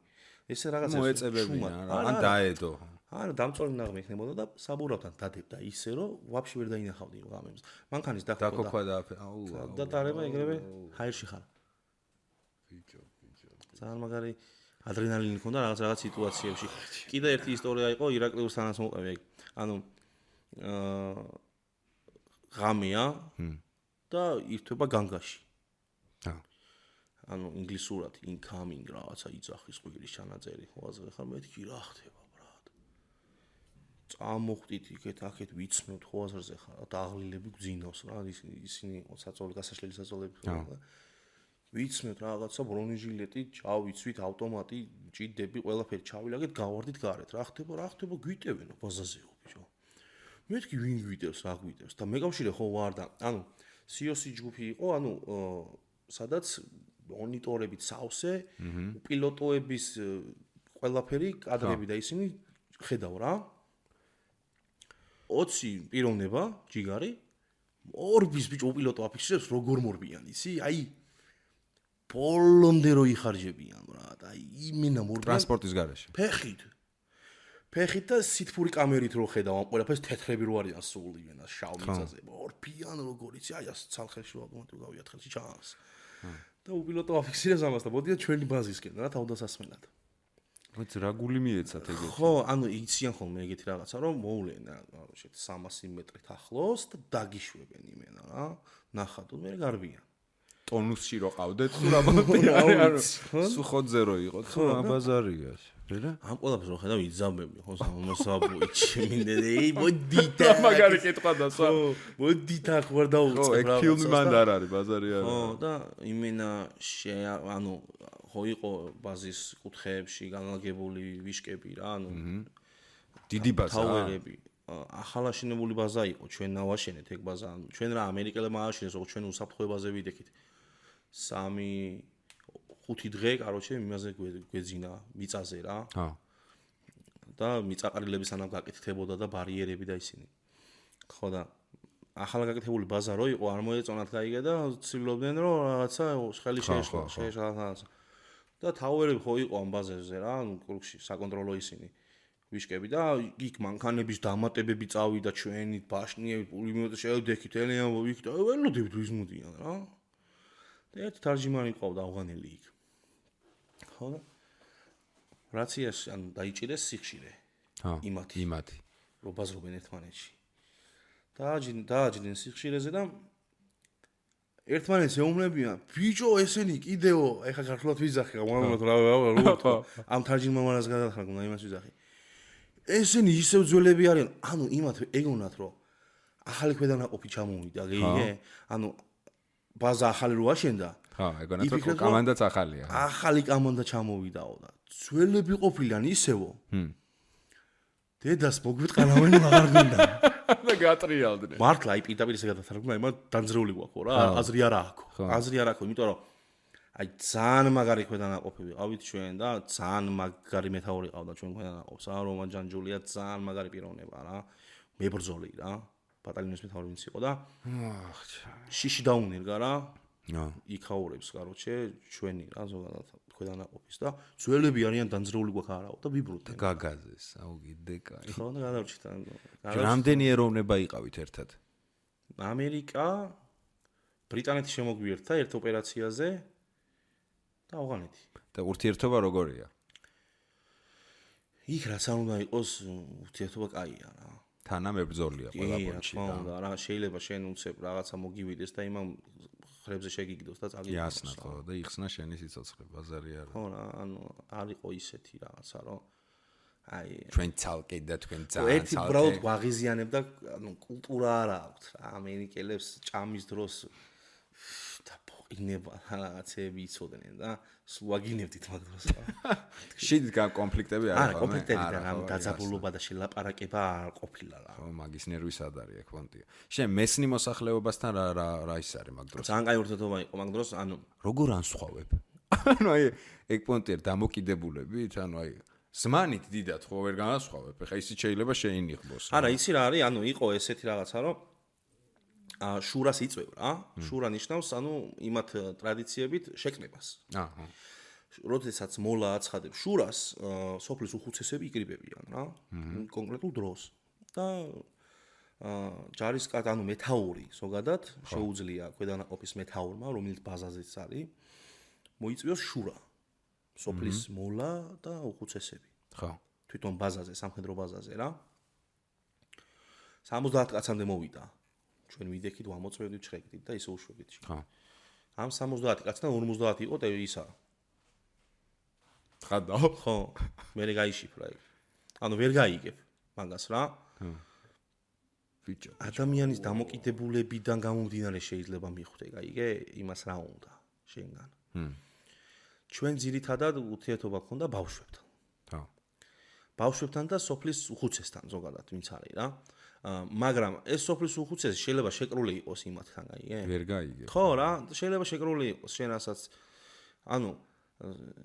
ესე რაღაცა მოეწებებინა რა, ან დაედო. არა, დამწვარი ნაღმი იქნებოდა და საბურავთან დადებდა ისე რომ ვაფშე ვერ დაინახავდი ღამემს. მანქანის დაქოქვა და და დარება ეგრევე ჰაერში ხარ. ბიჭო. ძალიან მაგარი ადრენალინი ქონდა რაღაც სიტუაციებში. კიდე ერთი ისტორია იყო ირაკლიუსთანაც მოყევი ეგ. ანუ ღამეა და ირთვება განგაში. ანუ ინგლისურად incoming რაღაცა იძახის ყვირის ჩანაწერი ხვაზე ხარ მეთქი რა ხდება ბრატ. წამოხდით იქეთ აქეთ ვიცნობთ ხვაზრზე ხარ და აღლილები გძინავს რა ისინი საწოლი გასაშლელი საწოლები ხო. ვიცნობთ რაღაცა ბრონეჟილეტი, ჩავიცვით ავტომატი, ჭიდები, ყველაფერი ჩავილაგეთ, გავარდით გარეთ. რა ხდება, გვიტევენო ბაზაზეო ბიჭო. მეთქი ვინ გვიტევს, რა გვიტევს და მეკავშირე ხო ვარ და ანუ COC ჯგუფი იყო, ანუ სადაც მონიტორებით სავსე, პილოტოების ყველაფერი კადრები და ისინი ხედავ რა. 20 პიროვნება, ჯიგარი, ორბის ბიჭო პილოტო აფიქსირებს როგორ მორბიან ისი, აი ბოლომდე რო იხარჯებიან რა, აი იმენა მორბიან ტრანსპორტის გარეშე. ფეხით და სითფური კამერით რო ხედავ ამ ყველაფერს თეთრები რო არიან სული ვენას შავ მიწაზე. ორბიან როგორ იცი, აი ას ცალხელში ავტომატურად გავიათ ხელში ჩანს. და უპილოტო აფიქსირებს ამას და მოდიან ჩვენი ბაზისკენ რა თავდასასმელად. მოიც რა გული მიეცათ ეგეთი. ხო, ანუ იციან ხოლმე ეგეთი რაღაცა რომ მოვლენ რა, შეთ 300 მეტრით ახლოს და დაგიშვებენ იმენა რა. ნახატო მე გარბიან. ტონუსში რო ყავდეთ თუ რა მოდი სუხოძე რო იყო თუ რა ბაზარია. რა? ამ ყველაფერს რო ხედავ იძამბები ხო სამოსაბუიჩი მინდე მოდი და მაგარი კითხვა და სა. მოდი და ხوار დაუწყებ რა. ხო, ეგ ფილმი მანდ არ არის ბაზარი არა. ხო და იმენა ანუ ხო იყო ბაზის კუთხეებში განლაგებული ვიშკები რა, ანუ დიდი ბაზა. თავერები. ახალაშენებული ბაზა იყო, ჩვენ ნავაშენეთ ეგ ბაზა, ანუ ჩვენ რა ამერიკელებმა ააშენეს, როგორც ჩვენ უსაფრთხოებაზე ვიდექით. 3-5 დღე, კაროჩე, იმაზე გვეძინა მიწაზე რა. და მიწაყრილები სანამ გაკეთდებოდა და ბარიერები და ისინი. ხო და ახალგაკეთებული ბაზა რო იყო, არ მოეწონათ გაიგე და ცდილობდნენ რომ რაღაცა ხელი შეეშლა. და თავერები ხო იყო ამ ბაზაზე რა, ანუ კრუგში საკონტროლო ისინი ვიშკები და იქ მანქანების დამატებები წავიდა ჩვენი ბაშნიები, პულიმეტი შევდექით, ელიან ვიქით, ველოდებით ვის მოდიან რა. და ერთი თარჯიმანი ყავდა ავღანელი იქ. ხო და რაციაში ან დაიჭირეს სიხშირე. იმათი. რო ბაზრობენ ერთმანეთში. დააჯდნენ სიხშირეზე და ერთმანეთს ეუბნებიან, ბიჭო, ესენი კიდეო, ეხა ქართულად ვიზახი, გამომავლად რა ამ თარჯიმანას გადახარ გუნა იმას ვიზახი. ესენი ისევ ძველები არიან, ანუ იმათ ეგონათ, რომ ახალი ქვედანაყოფი ჩამოვიდა, გიგე? ანუ ბაზა ახალი რო აშენდა. ეგონათ რომ კომანდაც ახალია. ახალი კომანდა ჩამოვიდაო და ძველები ყოფილიან ისევო. დედას მოგვიტყარავენ აღარ გინდა. და გატრიალდნენ. მართლა აი პირდაპირ ესე გადათარგმნა, იმა დამძრეული გვაქვს რა, აზრი არ აქვს. აზრი არ აქვს, იმიტომ რომ აი ძალიან მაგარი ქვედანაყოფები ყავით ჩვენ და ძალიან მაგარი მეთაური ყავდა ჩვენ ქვედანაყოფს. რომან ჯანჯულია ძალიან მაგარი პიროვნება რა. მებრძოლი რა. ბატალიონის მეთაური ვინც იყო და შიში დაუნერგა რა. იქაურებს, короче, ჩვენი რა ზოგადად ქვედანაყოფის და ძველები არიან დამძრეული გვაქვს არაო და ვიბრუნდნენ. გაგაზეს, აუ კიდე კაი. ხო და გადავჭით. რამდენი ეროვნება იყავით ერთად? ამერიკა, ბრიტანეთი შემოგვიერთა ერთ ოპერაციაზე და ავღანეთი. და ურთიერთობა როგორია? იქ რაც არ უნდა იყოს, ურთიერთობა კაია რა. თანამებრძოლია ყველა პონჩი და რა შეიძლება შენ უცებ რაღაცა მოგივიდეს და იმამ ხრებზე შეგიგდოს და წაგიგდოს. იასნა ხო და იხსნა შენი სიცოცხლე, ბაზარი არა. ხო რა, ანუ არ იყო ისეთი რაღაცა, რომ აი ჩვენ ცალკე და თქვენ ძალიან ერთი უბრალოდ ვაღიზიანებ და ანუ კულტურა არ აქვს რა. ამერიკელებს ჭამის დროს და პოყინება რაღაცები იცოდნენ და სუაგინებდით მაგ დროს. შიდ კონფლიქტები არ არა, კონფლიქტები და რა დაძაბულობა და შელაპარაკება არ ყოფილა რა. ხო, მაგის ნერვის ადარია ფონტია. შენ მესნი მოსახლეობასთან რა ის არის მაგ დროს? ძალიან კაი ურთიერთობა იყო მაგ დროს, ანუ როგორ ანსხვავებ? ანუ აი ეგ პონტია დამოკიდებულებით, ანუ აი ზმანით დიდად ხო ვერ განასხვავებ. ეხა ისიც შეიძლება შეინიღბოს. არა, იცი რა არის, ანუ იყო ესეთი რაღაცა, რომ შურას იწვევ რა. შურა ნიშნავს, ანუ იმათ ტრადიციებით შეკნებას. აჰა. როდესაც მოლა აცხადებს შურას, სოფლის უხუცესები იკრიბებიან რა. კონკრეტულ დროს. და ჯარისკაც, ანუ მეთაური ზოგადად შეუძლია ქვედანაყოფის მეთაურმა, რომელიც ბაზაზეც არის, მოიწვიოს შურა. სოფლის მოლა და უხუცესები. ხო. თვითონ ბაზაზე, სამხედრო ბაზაზე რა. 70 კაცამდე მოვიდა. ჩვენ ვიდექით, ვამოწმევდით, ჩხეკდით და ისე უშვებით. ხო. ამ 70 კაციდან 50 იყო ისა. ხადაო? ხო, მე გაიშიფრა ეგ. ანუ ვერ გაიგებ მაგას რა. ბიჭო. ადამიანის დამოკიდებულებიდან გამომდინარე შეიძლება მიხვდე, გაიგე? იმას რა უნდა შენგან. ჩვენ ძირითადად ურთიერთობა გქონდა ბავშვებთან. ხო. ბავშვებთან და სოფლის უხუცესთან ზოგადად ვინც არის რა. მაგრამ ეს სოფლის უხუცესი შეიძლება შეკრული იყოს იმათთან, გაიგე? ვერ გაიგე. ხო რა, შეიძლება შეკრული იყოს შენ რასაც ანუ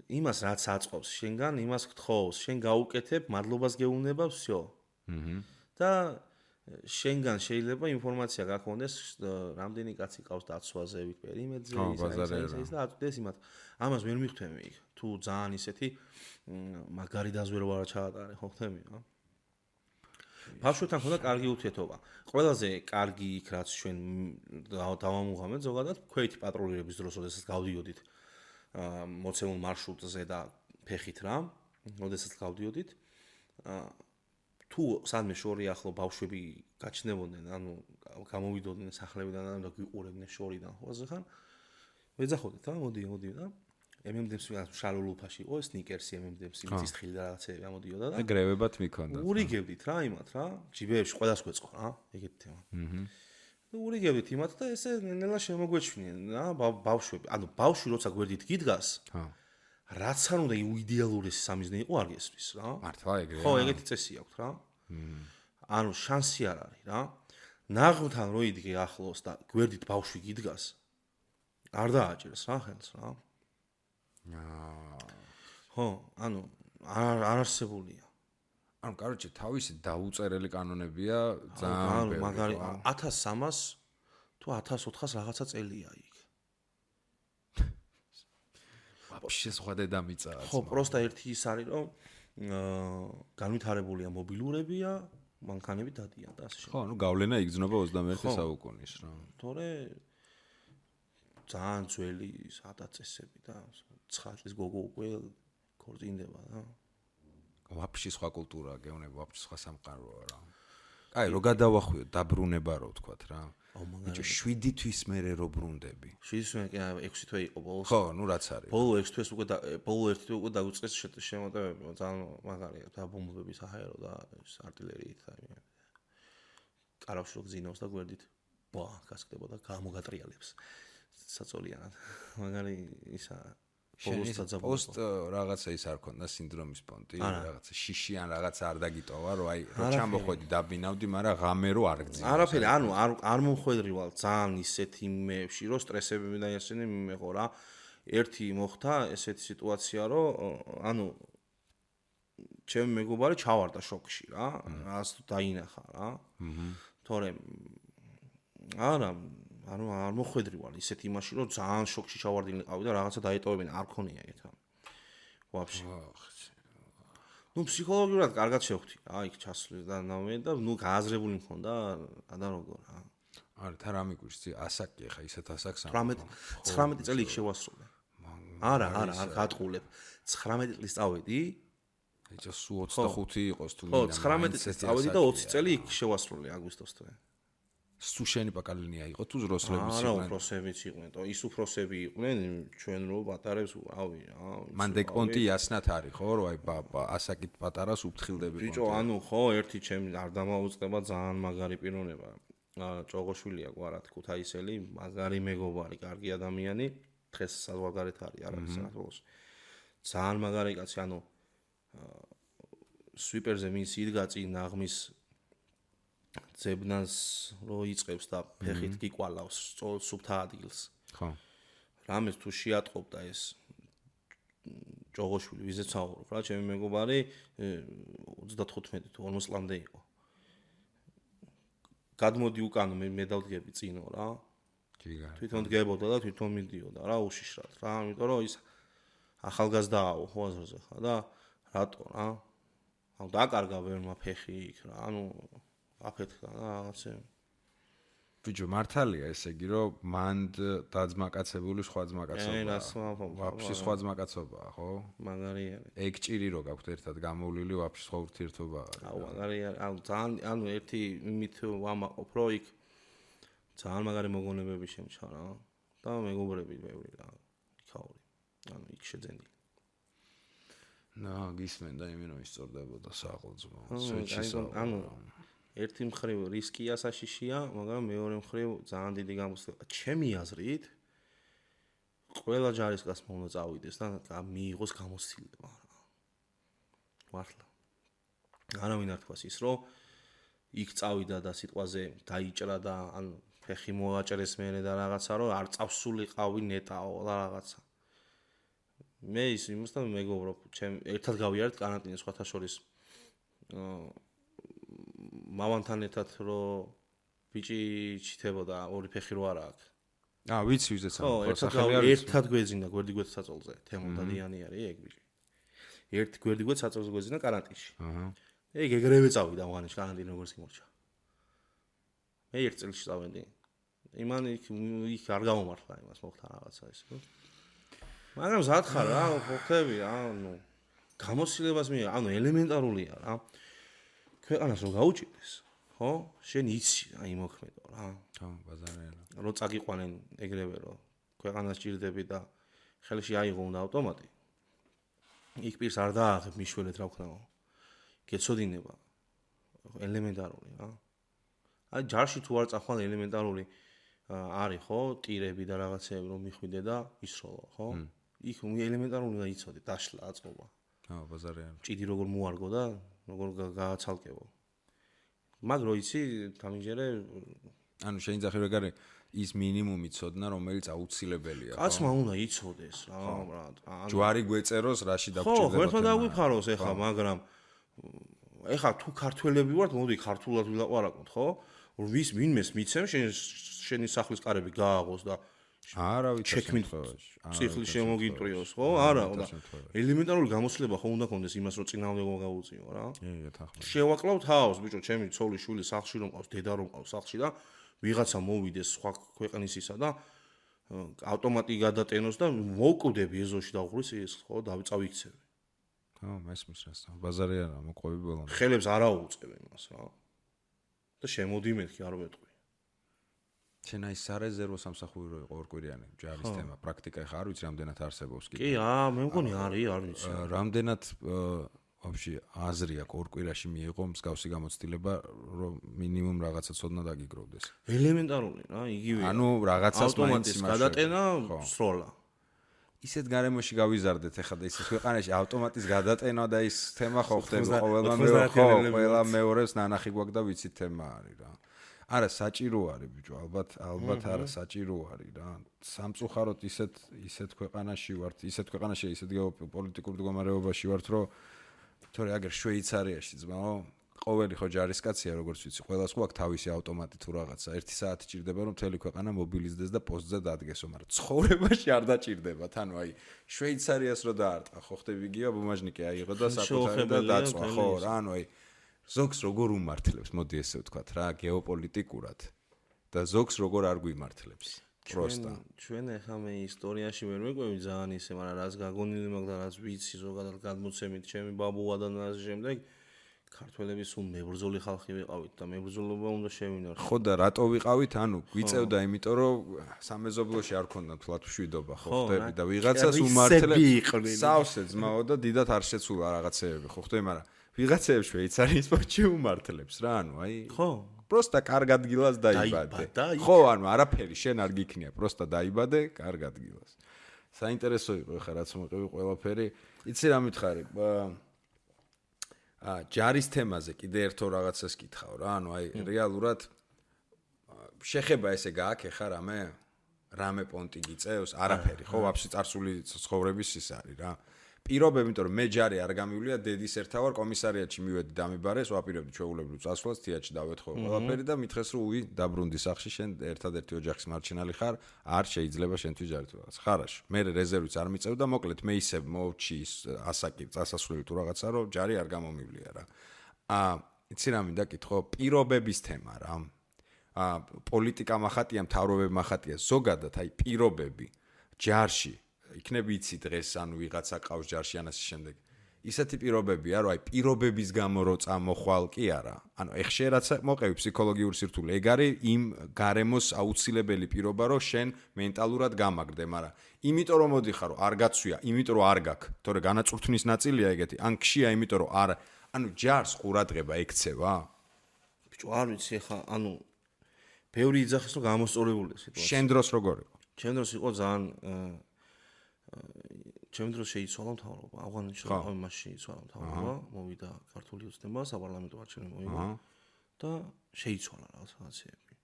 იმას რაც აწყობს შენგან, იმას გთხოვს, შენ გაუკეთებ, მადლობას გეუბნება, всё. და შენგან შეიძლება ინფორმაცია გაქონდეს, რამდენი კაცი ყავს დაცვაზე, ვით პერიმეტრზე, ის და აწვდეს იმათ. ამას ვერ მიხვდები იქ. თუ ძალიან ისეთი მაგარი დაზვერვა რა ჩაატარე, ხო ხთები რა. ბავშვებთან ხონდა კარგი ურთიერთობა. ყველაზე კარგი იქ რაც ჩვენ დავამუღამეთ ზოგადად, ქვეითი პატრულირების დროს, როდესაც გავდიოდით მოცემულ მარშრუტზე და ფეხით რა, როდესაც გავდიოდით, თუ სადმე შორი ახლო ბავშვები გაჩნდებოდნენ, ანუ გამოვიდოდნენ სახლებიდან და გვიყურებდნენ შორიდან, ხო ასე ხან? ვეძახოდით რა, მოდი და MM-დებს შალულუფაში იყო, სნიკერსი MM-დებს, იმის თხილი და რაღაცები ამოდიოდა და ეგრევებად მიქონდა. ურიგებდით რა იმათ რა, ჯიბეებში ყველას გვეწყო რა, ეგეთი თემა. და ურიგებდით იმათ და ესე ნელა შემოგვეჩვნენ რა, ბავშვები, ანუ ბავშვი როცა გვერდით გიდგას, რაც არ უნდა იდეალურესი სამიზნე იყო არ გესმის რა. მართლა ეგრეა. ხო, ეგეთი წესი აქვს რა. ანუ შანსი არ არის რა. ნაღმთან რო იდგე ახლოს და გვერდით ბავშვი გიდგას, არ დააჭერს რა ხელს რა. ხო, ანუ არ არსებულია. ანუ კაროჩე თავისი დაუწერელი კანონებია ძალიან ანუ მაგარი 1300 თუ 1400 რაღაცა წელია იქ. ვაფშე სხვა დედამიწაა. ხო, პროსტა ერთი ის არის, რომ განვითარებულია მობილურებია, მანქანები დადიან და ასე შემდეგ. ხო, ანუ გავლენა იგრძნობა 21 საუკუნის რა. თორე ძალიან ძველი ადაწესები და 9 წლის გოგო უკვე ქორწინდება რა. ვაფშე სხვა კულტურაა, გეუბნება, ვაფშე სხვა სამყაროა რა. აი, რო გადავახვიოთ დაბრუნება რო ვთქვათ რა. ბიჭო 7 თვის მერე რო ბრუნდები. 7 თვის 6 თვე იყო ბოლოს. ხო, ნუ რაც არის. ბოლო 6 თვეს უკვე ბოლო 1 თვე უკვე დაგვიწყეს შემოტევები, ძალიან მაგარია და ბომბების აერო და артиლერიით და კარავში რო გძინავს და გვერდით ბა გასკდებოდა გამოგატრიალებს. საწოლიანად. მაგარი ისა ბოლოს დაძაბულობა. პოსტ რაღაცა ის არ ქონდა სინდრომის პონტი, რაღაცა შიშიან რაღაცა არ დაგიტოვა, რომ აი რო ჩამოხვედი დაბინავდი, მაგრამ ღამე რო არ გძინავს. არაფერი, ანუ არ მომხვედრივალ ძალიან ისეთ იმებში, რომ სტრესები და ესენი მიმეღო რა. ერთი მოხდა ესეთი სიტუაცია, რომ ანუ ჩემი მეგობარი ჩავარდა შოკში რა, რას დაინახა რა. თორემ არა ანუ არ მოხვედრივარ ისეთ იმაში რომ ძალიან შოკში ჩავარდინიყავი და რაღაცა დაეტოვებინა არ ქონია ეგეთ რამე. ვაფშე. ნუ ფსიქოლოგიურად კარგად შევხვდი რა იქ ჩასვლის და ნამე და ნუ გააზრებული მქონდა და როგორ რა. არა თან რა მიგვიშცი ასაკი ხა ისეთ ასაკს 19 წელი იქ შევასრულე. არა არ გატყულებ. 19 წლის წავედი. ეჭა სულ 25 იყოს თუ ხო 19 წლის წავედი და 20 წელი იქ შევასრულე აგვისტოს თვე. სუ შენი პაკალინია იყო თუ ზროსლებიც იყვნენ? არა, უფროსებიც იყვნენ. ის უფროსები იყვნენ, ჩვენ რო პატარებს ავი რა. მან დეგპონტი იასნათ არის ხო, რომ აი ასაკით პატარას უფრთხილდები პონტი. ბიჭო, ანუ ხო, ერთი ჩემი არ დამაუწყდება ძალიან მაგარი პიროვნება. ჭოღოშვილია გვარად ქუთაისელი, მაგარი მეგობარი, კარგი ადამიანი, დღეს საზღვარგარეთ არის, არის საქართველოს. ძალიან მაგარი კაცი, ანუ სვიპერზე მინც იდგა წინ ნაღმის ძებნას რო იწევს და ფეხით გიკვალავს სუფთა ადგილს. ხო. რამეს თუ შეატყობდა ეს ჭოღოშვილი, ვიზეც ვსაუბრობ რა, ჩემი მეგობარი 35 თუ 40 წლამდე იყო. გადმოდი უკან მე დავდგები წინო რა. თვითონ დგებოდა და თვითონ მიდიოდა რა უშიშრად რა, იმიტომ რომ ის ახალგაზრდააო ხო აზრზე ხა და რატო რა? ანუ დაკარგა ვერმა ფეხი იქ რა, ანუ აფეთქა რა რაღაცები. ბიჭო მართალია ესე იგი რომ მანდ დაძმაკაცებული სხვა ძმაკაცობაა. ვაფშე სხვა ძმაკაცობაა ხო? მაგარია. ეგ ჭირი რო გაქვთ ერთად გამოვლილი ვაფშე სხვა ურთიერთობაა. აუ მაგარია, აუ ძალიან ანუ ერთი იმით ვამაყობ რომ იქ ძალიან მაგარი მოგონებები შემჩა რა და მეგობრები ბევრი რა იქაური. ანუ იქ შეძენილი. გისმენდა იმენო ისწორდებოდა საყოძმო. ანუ ერთი მხრივ რისკია საშიშია, მაგრამ მეორე მხრივ ძალიან დიდი გამოსვლება. ჩემი აზრით ყველა ჯარისკაცმა უნდა წავიდეს და მიიღოს გამოცდილება რა. მართლა. არავინ არ თქვას ის, რომ იქ წავიდა და სიტყვაზე დაიჭრა და ან ფეხი მოაჭრეს მერე და რაღაცა, რომ არ წავსულიყავი ნეტაო და რაღაცა. მე ის იმასთან მეგობრობ, ჩემ ერთად გავიარეთ კარანტინას სხვათა შორის. მამამთან ერთად რომ ბიჭი ჩითებოდა ორი ფეხი რო არა აქვს. ვიცი ვიზეც ერთად გვეძინა გვერდი გვერდ საწოლზე. თემოდადიანი არის ეგ ბიჭი. ერთ გვერდი გვერდ საწოლზე გვეძინა კარანტინში. ეგ ეგრევე წავიდა მაღანაში კარანტინი როგორც იმორჩა. მე ერთ წელში წავედი. იმან იქ არ გამომართლა იმას მოხდა რაღაცა ის. მაგრამ ზად ხარ რა, ხოხები რა, ანუ გამოცდილებას მე, ანუ ელემენტარულია რა. ქვეყანას რო გაუჭირდეს, ხო? შენ იცი აი მოქმედო რა. ხო, ბაზარია. რო წაგიყვანენ ეგრევე რო ქვეყანას ჭირდები და ხელში აიღო უნდა ავტომატი. იქ პირს არ დააღებ მიშველეთ რა ვქნაო. გეცოდინება ელემენტარული რა. აი ჯარში თუ არ წახვალ ელემენტარული არის ხო, ტირები და რაღაცეები რომ მიხვიდე და ისროლო, ხო? იქ ელემენტარული უნდა იცოდე, დაშლა აწყობა. ხო, ბაზარია. ჭიდი როგორ მოარგო და როგორ გააცალკევო. მაგ რო იცი, თამიჯერე ანუ შეიძლება რეგარი ის მინიმუმი ცოდნა, რომელიც აუცილებელია, ხო? კაცმა უნდა იცოდეს რა, ბრატ. ჯვარი გვეწეროს, რაში დაგჭირდება. ხო, ხერხმა დაგვიფაროს ეხლა, მაგრამ ეხლა თუ ქართველები ვართ, მოდი ქართულად ვილაპარაკოთ, ხო? ვის ვინმეს მიცემ შენი სახლის კარები გააღოს და არა ვიცი ციხლი შემოგიტრიოს ხო? არა, და ელემენტარული გამოცდილება ხო უნდა კონდეს იმას რომ წინააღმდეგობა გაუწიო რა. შევაკლავ თავს, ბიჭო, ჩემი ცოლი შვილი სახლში რომ ყავს, დედა რომ ყავს სახლში და ვიღაცა მოვიდეს სხვა ქვეყნისისა და ავტომატი გადატენოს და მოვკვდები ეზოში დაუღრის ის ხო, დავიწავიქცები. ხო, მესმის რას. ბაზარია რა, მოყვები ბოლომდე. ხელებს არ აუწევ იმას რა. და შემოდი მეთქი არ ვეტყვი. შენ აი სარეზერვო სამსახური იყო ორკვირიანი ჯარის თემა პრაქტიკა ხა არ ვიცი რამდენად არსებობს კი მე მგონი არის არ ვიცი რამდენად вообще აზრი აქვს ორკვირაში მიიღო მსგავსი გამოცდილება რომ მინიმუმ რაღაცა ცოდნა დაგიგროვდეს ელემენტარული რა იგივეა ანუ რაღაცას ავტომატის გადატენა სროლა ისეთ გარემოში გავიზარდეთ ახლა და ისეთ ქვეყანაში ავტომატის გადატენა და ის თემა ხო ხდება ყველა მეორეს ნანახი გვაქვს და ვიცით თემა არის რა არა საჭირო არის ბიჭო ალბათ არა საჭირო არის რა სამწუხაროდ ისეთ ქვეყანაში ვართ ისეთ ქვეყანაში ისეთ გეოპოლიტიკურ მდგომარეობაში ვართ რომ თორე აგერ შვეიცარიაში ძმაო ყოველი ხო ჯარისკაცია როგორც ვიცი ყველას ხო აქვს თავისი ავტომატი თუ რაღაცა 1 საათი ჭირდება რომ მთელი ქვეყანა მობილიზდეს და პოსტზე დადგესო მაგრამ ცხოვრებაში არ დაჭირდებათ ანუ აი შვეიცარიას რო დაარტყა ხო ხტები გია ბუმაჟნიკი აიღო და საკუთარი და დაწვა ხო რა ანუ აი ზოგს როგორ უმართლებს მოდი ესე ვთქვათ რა გეოპოლიტიკურად და ზოგს როგორ არ გვიმართლებს პროსტა ჩვენ ახლა მე ისტორიაში ვერ მეკვევი ძალიან ისე მაგრამ რაც გაგონილი მაქვს და რაც ვიცი ზოგადად გადმოცემით ჩემი ბაბუა და ასე შემდეგ ქართველები სულ მებრძოლი ხალხი ვიყავით და მებრძოლობა უნდა შევინარჩუნოთ ხო და რატო ვიყავით ანუ გვიწევდა იმიტომ რომ სამეზობლოში არ ქონდა თლათ მშვიდობა ხო ხტები და ვიღაცას უმართლებს სავსე ძმაო და დიდათ არ შეცულა რაღაცეები ხო ხტები მაგრამ ვიღაცეებს შვეიცარიის პორტში უმართლებს რა ანუ აი ხო პროსტა კარგ ადგილას დაიბადე ხო ანუ არაფერი შენ არ გიქნია პროსტა დაიბადე კარგ ადგილას საინტერესო იყო ხა რაც მოყევი ყველაფერი იცი რა მითხარი ჯარის თემაზე კიდე ერთო რაღაცას კითხავ რა ანუ აი რეალურად შეხება ესე გააკეხა რამე პონტი გიწევს არაფერი ხო ვაფშე წარსული ცხოვრების ის არის რა პირობები იმიტომ რომ მე ჯარი არ გამივლია დედის ერთა ვარ კომისარიატში მივედი დამიბარეს ვაპირებდი ჩვეულებრივ წასვლას თეატრში დავეთხოვ ყველაფერი და მითხეს რომ უი დაბრუნდი სახში შენ ერთადერთი ოჯახის მარჩენალი ხარ არ შეიძლება შენთვის ჯარი თუ რაღაც ხარაში მე რეზერვიც არ მიწევ და მოკლედ მე ისე მოვჩი ასაკი წასასვლელი თუ რაღაცა რომ ჯარი არ გამომივლია რა იცი რა მინდა კითხო პირობების თემა რა პოლიტიკა מחატია მთავრობები מחატია ზოგადად აი პირობები ჯარში იქნებ იცი დღეს ანუ ვიღაცა ყავს ჯარში ან ასე შემდეგ ისეთი პირობებია რომ აი პირობების გამო რო წამოხვალ კი არა ანუ ეხშე რაც მოყევი ფსიქოლოგიური სირთულე ეგ არის იმ გარემოს აუცილებელი პირობა რომ შენ მენტალურად გამაგრდე მაგრამ იმიტომ რომ მოდიხარ რომ არ გაცვია იმიტომ რომ არ გაქვს თორე განაწურთნის ნაწილია ეგეთი ან ქშია იმიტომ რომ არ ანუ ჯარს ყურადღება ექცევა ბიჭო არ ვიცი ხა ანუ ბევრი იძახის რომ გამოსწორებული სიტუაცია შენ დროს როგორ იყო შენ დროს იყო ძალიან ჩემ დროს შეიცვალა მთავრობა ავღანეთში ამაში შეიცვალა მთავრობა მოვიდა ქართული ოცნება საპარლამენტო არჩევნები მოიგო და შეიცვალა რაღაცეები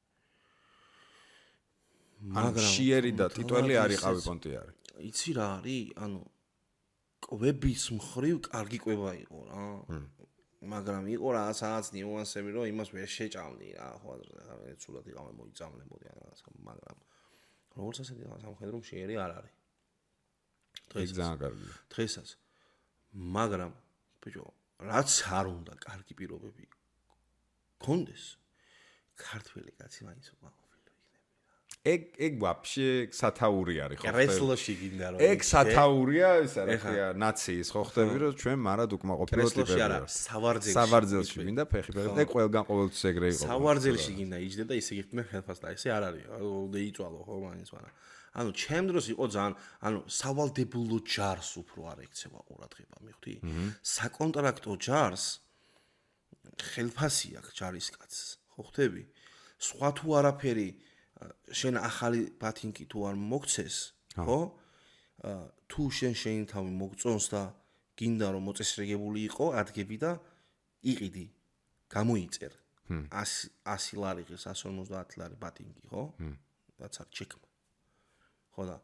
მაგრამ შიერი და ტიტველი არ იყავი პონტიარი იცი რა არის ანუ კვების მხრივ კარგი კვება იყო რა მაგრამ იყო რაღაც ნიუანსები რომ იმას ვერ შეჭამდი რა ხო ახლა ცუდად იყავენ მოიწამლებოდი რაღაცა მაგრამ როგორც ასეთი სამხედრო შიერი არ არის დღესაც მაგრამ ბიჭო რაც არ უნდა კარგი პირობები გქონდეს ქართველი კაცი მაინც უყაყოფილო იქნება ეგ ვაფშე სათაური არის ხო კრესლოში გინდა რომ ეგ სათაურია ისა რა ხია ნაციის ხო ხდები რომ ჩვენ მარად უკმაყოფილო ტიპები არა სავარძელში გინდა ფეხი ეგ ყველგან ყოველთვის ეგრე იყო სავარძელში გინდა იჯდე და ისე გიხდნენ ხელფასს და ესე არ არის და იწვალო ხო მაინც მაგრამ ანუ ჩემ დროს იყო ძალიან ანუ სავალდებულო ჯარს უფრო არ ექცევა ყურადღება მიხვდი საკონტრაქტო ჯარს ხელფასი აქვს ჯარისკაცს ხო ხტები სხვა თუ არაფერი შენ ახალი ბათინკი თუ არ მოგცეს ხო თუ შენ შენი თავი მოგწონს და გინდა რომ მოწესრიგებული იყო ადგები და იყიდი გამოიწერ 100 ლარი ღირს 150 ლარი ბათინკი ხო რაც არ ჩეკმა ხო და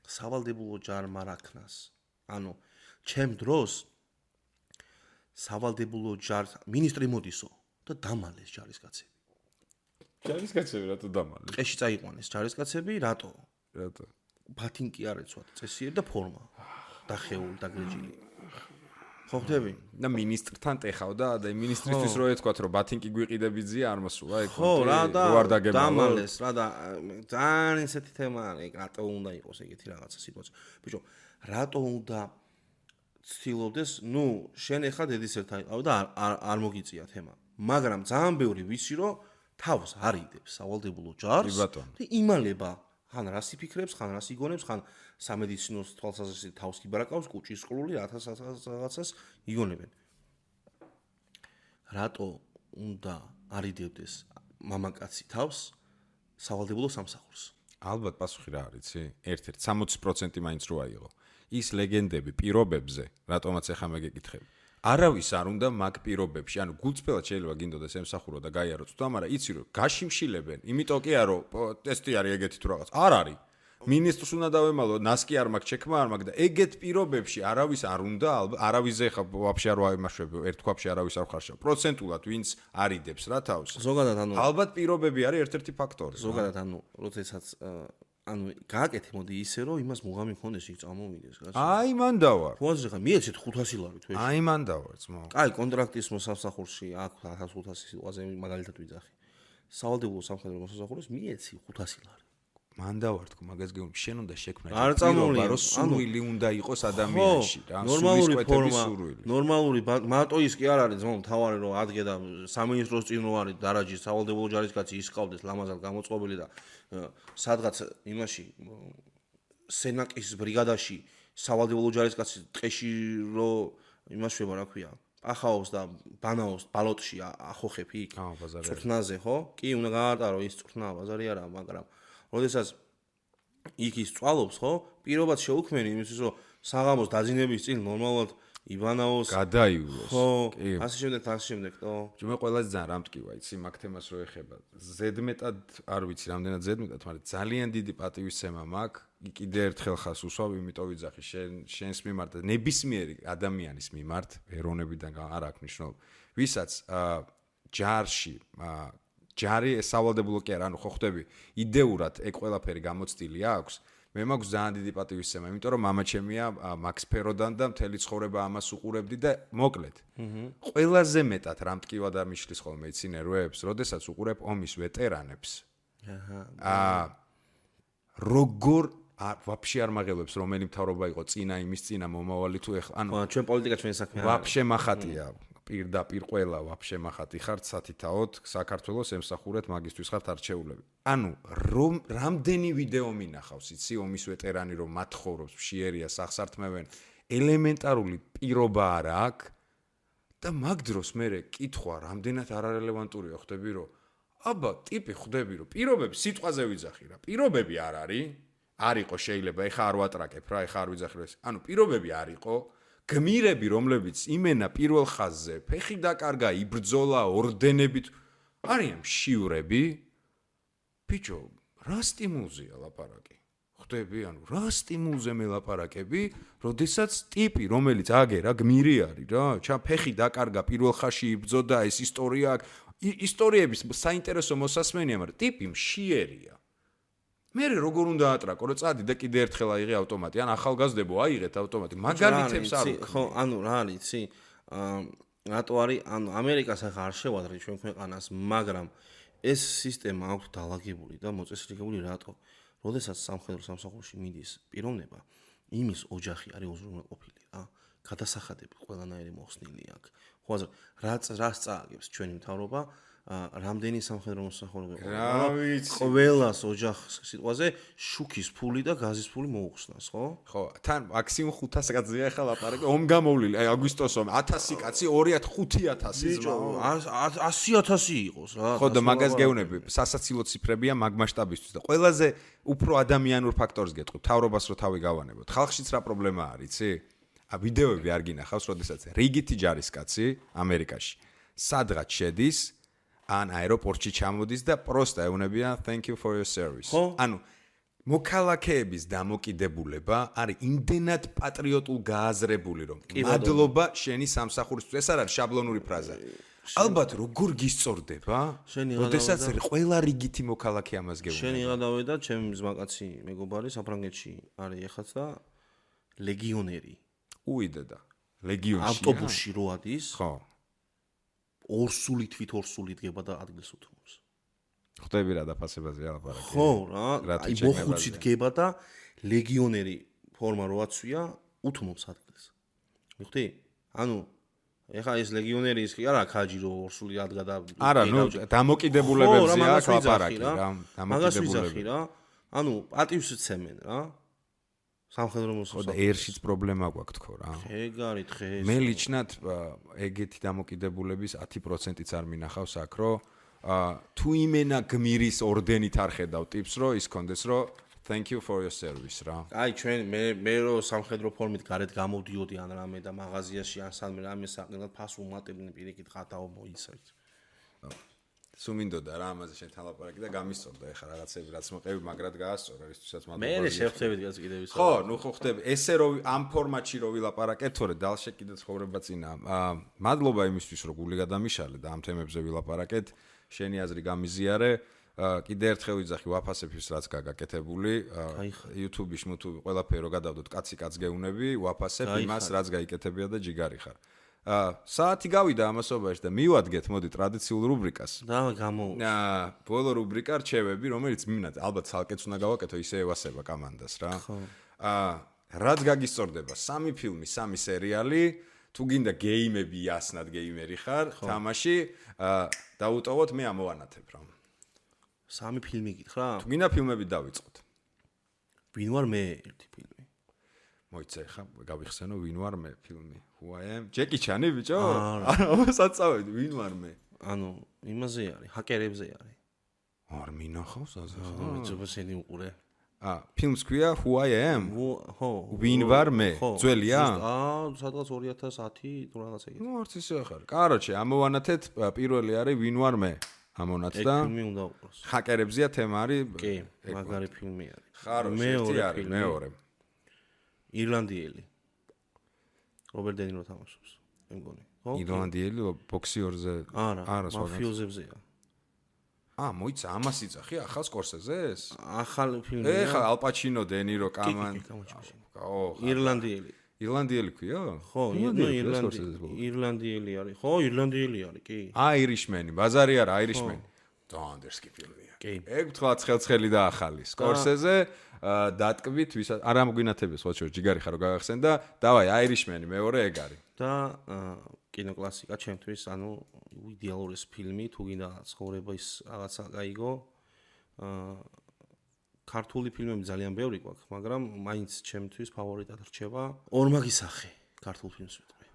სავალდებულო ჯარმა რაქნას ანუ ჩემ დროს სავალდებულო ჯარს მინისტრი მოდისო და დამალეს ჯარისკაცები რატო დამალეს ყეში წაიყვანეს ჯარისკაცები რატო ბათინკი არ ეცვათ წესიერი და ფორმა დახეული დაგრეჯილი ხო ხდები და ministrთან ტეხავდა და ministrისთვის რო ეთქვათ რომ ბათინკი გვიყიდებიძია არ მოსულა ეგ ხო რა და დამალეს რა და ძალიან ესეთი თემა არის რატო უნდა იყოს ეგეთი რაღაცა სიტუაცია ბიჭო რატო უნდა ცდილობდეს ნუ შენ ახლა დედის ერთა იყავ და არ მოგიწია თემა მაგრამ ძალიან ბევრი ვიცი რომ თავს არიდებს სავალდებულო ჯარს და იმალება ხან რას იფიქრებს, ხან რას იგონებს, ხან სამედიცინო თვალსაზრისით თავს კიბარაკავს, კუჭის ყლული რაღაცას იგონებენ. რატო უნდა არიდებდეს მამაკაცი თავს სავალდებულო სამსახურს? ალბათ პასუხი რა არის, იცი? ერთ-ერთ 60% მაინც რო აიღო. ის ლეგენდები პირობებზე, რატომაც ახლა მეგეკითხები. არავის არ უნდა მაგ პირობებში, ანუ გულწრფელად შეიძლება გინდოდეს ემსახურო და გაიარო წვდა, მაგრამ იცი რომ გაშიმშილებენ, იმიტომ კი არა რომ ტესტი არის ეგეთი თუ რაღაც. არ არის. მინისტრს უნდა დავემალო, ნასკი არ მაქვს, ჩექმა არ მაქვს და ეგეთ პირობებში არავის არ უნდა, არავის ეხა ვაფშე არ ვაიმაშვებ, ერთ ქვაბში არავის არ ხარშავ. პროცენტულად ვინც არიდებს რა თავს. ზოგადად ალბათ პირობები არის ერთ-ერთი ფაქტორი. ზოგადად როდესაც გააკეთე მოდი ისე რომ იმას მუღამი მქონდეს იქ წამოვიდეს კაცო. აი მან დავარ. ხოაზრე ხა მიეცეთ 500 ლარი თვეში. აი მან დავარ ძმაო. აი კონტრაქტის მოსამსახურში აქ 1500 სიტყვაზე მაგალითად ვიძახი. სავალდებულო სამხედრო მოსამსახურს მიეცი 500 ლარი. მან დავარ თქო მაგას გეუბნები შენ უნდა შექმნა არ წამოვლია რომ სურვილი უნდა იყოს ადამიანში რა ნორმალური ფორმა ნორმალური მარტო ის კი არ არის ძმაო თავარი რომ ადგე და სამინისტროს წინ რო არის დარაჯის სავალდებულო ჯარისკაცი ისყავდეს ლამაზად გამოწყობილი და სადღაც იმაში სენაკის ბრიგადაში სავალდებულო ჯარისკაცი ტყეში რო იმაშვება რა ქვია ახაოს და ბანაოს ბალოტში ახოხებ იქ წვრთნაზე ხო კი უნდა გაარტარო ის წვრთნა ბაზარი არა მაგრამ როდესაც იქ ის წვალობს ხო პირობად შეუქმენი იმისთვის რომ საღამოს დაძინების წინ ნორმალურად იბანაოს გადაივლოს ხო ასე შემდეგ თო მე ყველაზე ძალიან რამტკივა იცი მაგ თემას რო ეხება ზედმეტად არ ვიცი რამდენად ზედმეტად მაგრამ ძალიან დიდი პატივისცემა მაქვს კიდე ერთხელ ხას უსვავ იმიტომ ვიძახი შენს მიმართ და ნებისმიერი ადამიანის მიმართ ეროვნებიდან არ აქვს მნიშვნელობა ვისაც ჯარში ჯარი სავალდებულო კი არა, ანუ ხო ხვდები, იდეურად ეგ ყველაფერი გამოცდილი აქვს. მე მაქვს ძალიან დიდი პატივისცემა, იმიტომ რომ მამა ჩემია მაქს ფეროდან და მთელი ცხოვრება ამას უყურებდი და მოკლედ. ყველაზე მეტად რამტკივა და მიშლის ხოლმე იცინეროებს, როდესაც უყურებ ომის ვეტერანებს. როგორ ვაფშე არ მაღელებს რომელი მთავრობა იყო წინა იმის წინა მომავალი თუ ეხლა ანუ ჩვენ პოლიტიკა ჩვენ საქმე ვაფშე מחატია. პირდაპირ ყველა ვაფშე מחატი ხართ სათითაოდ საქართველოს ემსახურეთ მაგისტვის ხართ არჩეულები. ანუ რამდენი ვიდეო მინახავს იცი ომის ვეტერანი რომ მათხოვრობს მშიერია სახსართმევენ ელემენტარული პირობა არა აქვს და მაგ დროს მე კითხვა რამდენად არარელევანტურია ხვდები რომ აბა ტიპი ხვდები რომ პირობები სიტყვაზე ვიძახი რა პირობები არ არისო შეიძლება ეხა არ ვატრაკებ რა ეხა არ ვიძახი ეს ანუ პირობები არისო გმირები რომლებიც იმენა პირველ ხაზზე ფეხი დაკარგა იბრძოლა ორდენებით არიან მშივრები ბიჭო რა სტიმულზეა ლაპარაკი ხვდები ანუ რა სტიმულზე მელაპარაკები როდესაც ტიპი რომელიც აგერა გმირი არის რა ჩა ფეხი დაკარგა პირველ ხაზში იბრძოდა ეს ისტორიების საინტერესო მოსასმენია მაგრამ ტიპი მშიერია მე როგორ უნდა ატრაკო რომ წადი და კიდე ერთხელ აიღე ავტომატი ან ახალგაზრდებო აიღეთ ავტომატი მაგალითებს არ ხო ანუ რა არის იცი რატო არის ანუ ამერიკას ახლა არ შევადრე ჩვენ ქვეყანას მაგრამ ეს სისტემა აქვს დალაგებული და მოწესრიგებული რატო როდესაც სამხედრო სამსახურში მიდის პიროვნება იმის ოჯახი არის უზრუნველყოფილი რა გადასახადები ყველანაირი მოხსნილი აქვს ხო ასე რაც წააგებს ჩვენი მთავრობა რამდენი სამხედრო მოსახურება ყველას ოჯახს სიტყვაზე შუქის ფული და გაზის ფული მოუხსნას ხო? ხო, თან მაქსიმუმ 500 კაცია ახლა ლაპარაკი, ომ გამოვლილი, აი აგვისტოს ომ 1000 კაცი 2500 ზმაო 100000 იყოს რა. ხო და მაგას გეუნები, სასაცილო ციფრებია მაგ მასშტაბისთვის და ყველაზე უფრო ადამიანურ ფაქტორს გეტყვი, თავრობას რო თავი გავანებოთ. ხალხშიც რა პრობლემა არის, იცი? ვიდეოები არ გინახავს, როდესაც რიგითი ჯარისკაცი ამერიკაში სადღაც შედის ან აეროპორტში ჩამოდის და პროსტა ეუნებიან thank you for your service. ანუ მოქალაქეების დამოკიდებულება არის იმდენად პატრიოტულ გააზრებული რომ მადლობა შენი სამსახურისთვის. ეს არ არის შაბლონური ფრაზა. ალბათ როგორ გისწორდება? როდესაც ყველა რიგითი მოქალაქე ამას გეუბნება. შენ იღადავე და ჩემი ზმაკაცი მეგობარი საფრანგეთში არის ეხაც და ლეგიონერი. უიდედა. ლეგიონში. ავტობუსში რო ადის? ხო. ორსული თვითორსული დგება და ადგილს უთმობს. ხვდები რა დაფასებაზე ალაპარაკი. ხო რა, აი მოხუცი დგება და ლეგიონერი ფორმა რო აცვია, უთმობს ადგილს. მიხვდი? ანუ ეხა ეს ლეგიონერი ის კი არა ქაჯი რო ორსული ადგადა არა ნუ დამოკიდებულებებზე აქვს ლაპარაკი რა დამოკიდებულები რა ანუ პატივს ცემენ რა სამხედრო მოსახლეობა და ერშიც პრობლემა გვაქვს თქო რა ეგარი დღეს მე ლიჩნად ეგეთი დამოკიდებულების 10%-იც არ მინახავს აქ რო თუ იმენა გმირის ორდენით არ ხედავ ტიპს რო ის კონდეს რო thank you for your service რა აი ჩვენ მე რო სამხედრო ფორმით გარეთ გამოვდიოდი ან რამე და მაღაზიაში ან სანმე რამე საყნელად ფას უმატებდნენ პირიქით ხათაო მოიცავთ სუმინდოდა რა ამაზე შენთან ლაპარაკი და გამისწორდა ეხა რაღაცები რაც მოყევი მაგრად გაასწორა ისთვისაც მე შევხვდებით გაც კიდევ ხო ნუ ხო ხდები ესე რო ამ ფორმატში რო ვილაპარაკეთ თორე დალშე კიდე ცხოვრება წინა მადლობა იმისთვის რომ გული გადამიშალე და ამ თემებზე ვილაპარაკეთ შენი აზრი გამიზიარე კიდე ერთხელ ვიძახი ვაფასებ ის რაც გაგაკეთებული YouTube-ში მუთუბი ყველაფერი რო გადავდოთ კაცი კაც გეუნები ვაფასებ იმას რაც გაიკეთებია და ჯიგარი ხარ საათი გავიდა ამასობაში და მივადგეთ მოდი ტრადიციულ რუბრიკას და გამო ბოლო რუბრიკა რჩევები რომელიც მინდა ალბათ ცალკეც უნდა გავაკეთო ისე ევასება კომანდას რა რაც გაგისწორდება 3 ფილმი 3 სერიალი თუ გინდა გეიმები იასნად გეიმერი ხარ თამაში დაუტოვოთ მე ამოვანათებ რა 3 ფილმი გითხრა? თუ გინდა ფილმები დავიწყოთ. ვინ ვარ მე ერთი ფილმი. მოიცა ხა გავიხსენო ვინ ვარ მე ფილმი. Who I am? ჯეკი ჩანი ბიჭო? არა, საწავედი ვინ ვარ მე? ანუ იმაზე არის, ჰაკერებზე არის. არ მინახავს ასე ხა? ძობსენი უყურე. ფილმს ქვია Who I am? ხო. ვინ ვარ მე? ძველია? სადღაც 2010 თუ რაღაც ეგეთი. ნუ არც ისე ხარ. კაროჩე, ამოვანათეთ პირველი არის ვინ ვარ მე? ამონათ და ფილმი უნდა უყუროს. ჰაკერებზია თემა არის. კი, მაგარი ფილმი არის. ხარო, ერთი არის, მეორე. ირლანდიელი. რობერტ დე ნირო თამაშობს. მე მგონი. ხო? ირლანდიელი ბოქსიორზე არა, მაფიოზებზეა. მოიცა ამას იწახი ახალ სკორსეზეს? ახალ ფილმია. ეხა ალ პაჩინო, დე ნირო, კამან. ირლანდიელი. ირლანდიელი ქვია? ხო, ირლანდიელი არის. ხო, ირლანდიელი არის, კი. აირიშმენი, ბაზარი არა, აირიშმენი. დანდერსკი ფილმია. კი. ეგ თქვა ცხელი და ახალი. სკორსეზე დატკბით, ვისაც არ ამგვინათებს ხო შორ ჯიგარი ხარო გაგახსენ და დავაი აირიშმენი მეორე ეგ არის. და კინოკლასიკა ჩემთვის, ანუ იდეალური ფილმი, თუ გინდა ცხოვრების რაღაცა გაიგო. ქართული ფილმები ძალიან ბევრი გვაქვს, მაგრამ მაინც ჩემთვის ფავორიტად რჩება ორმაგი სახე ქართულ ფილმს ვიტყვი.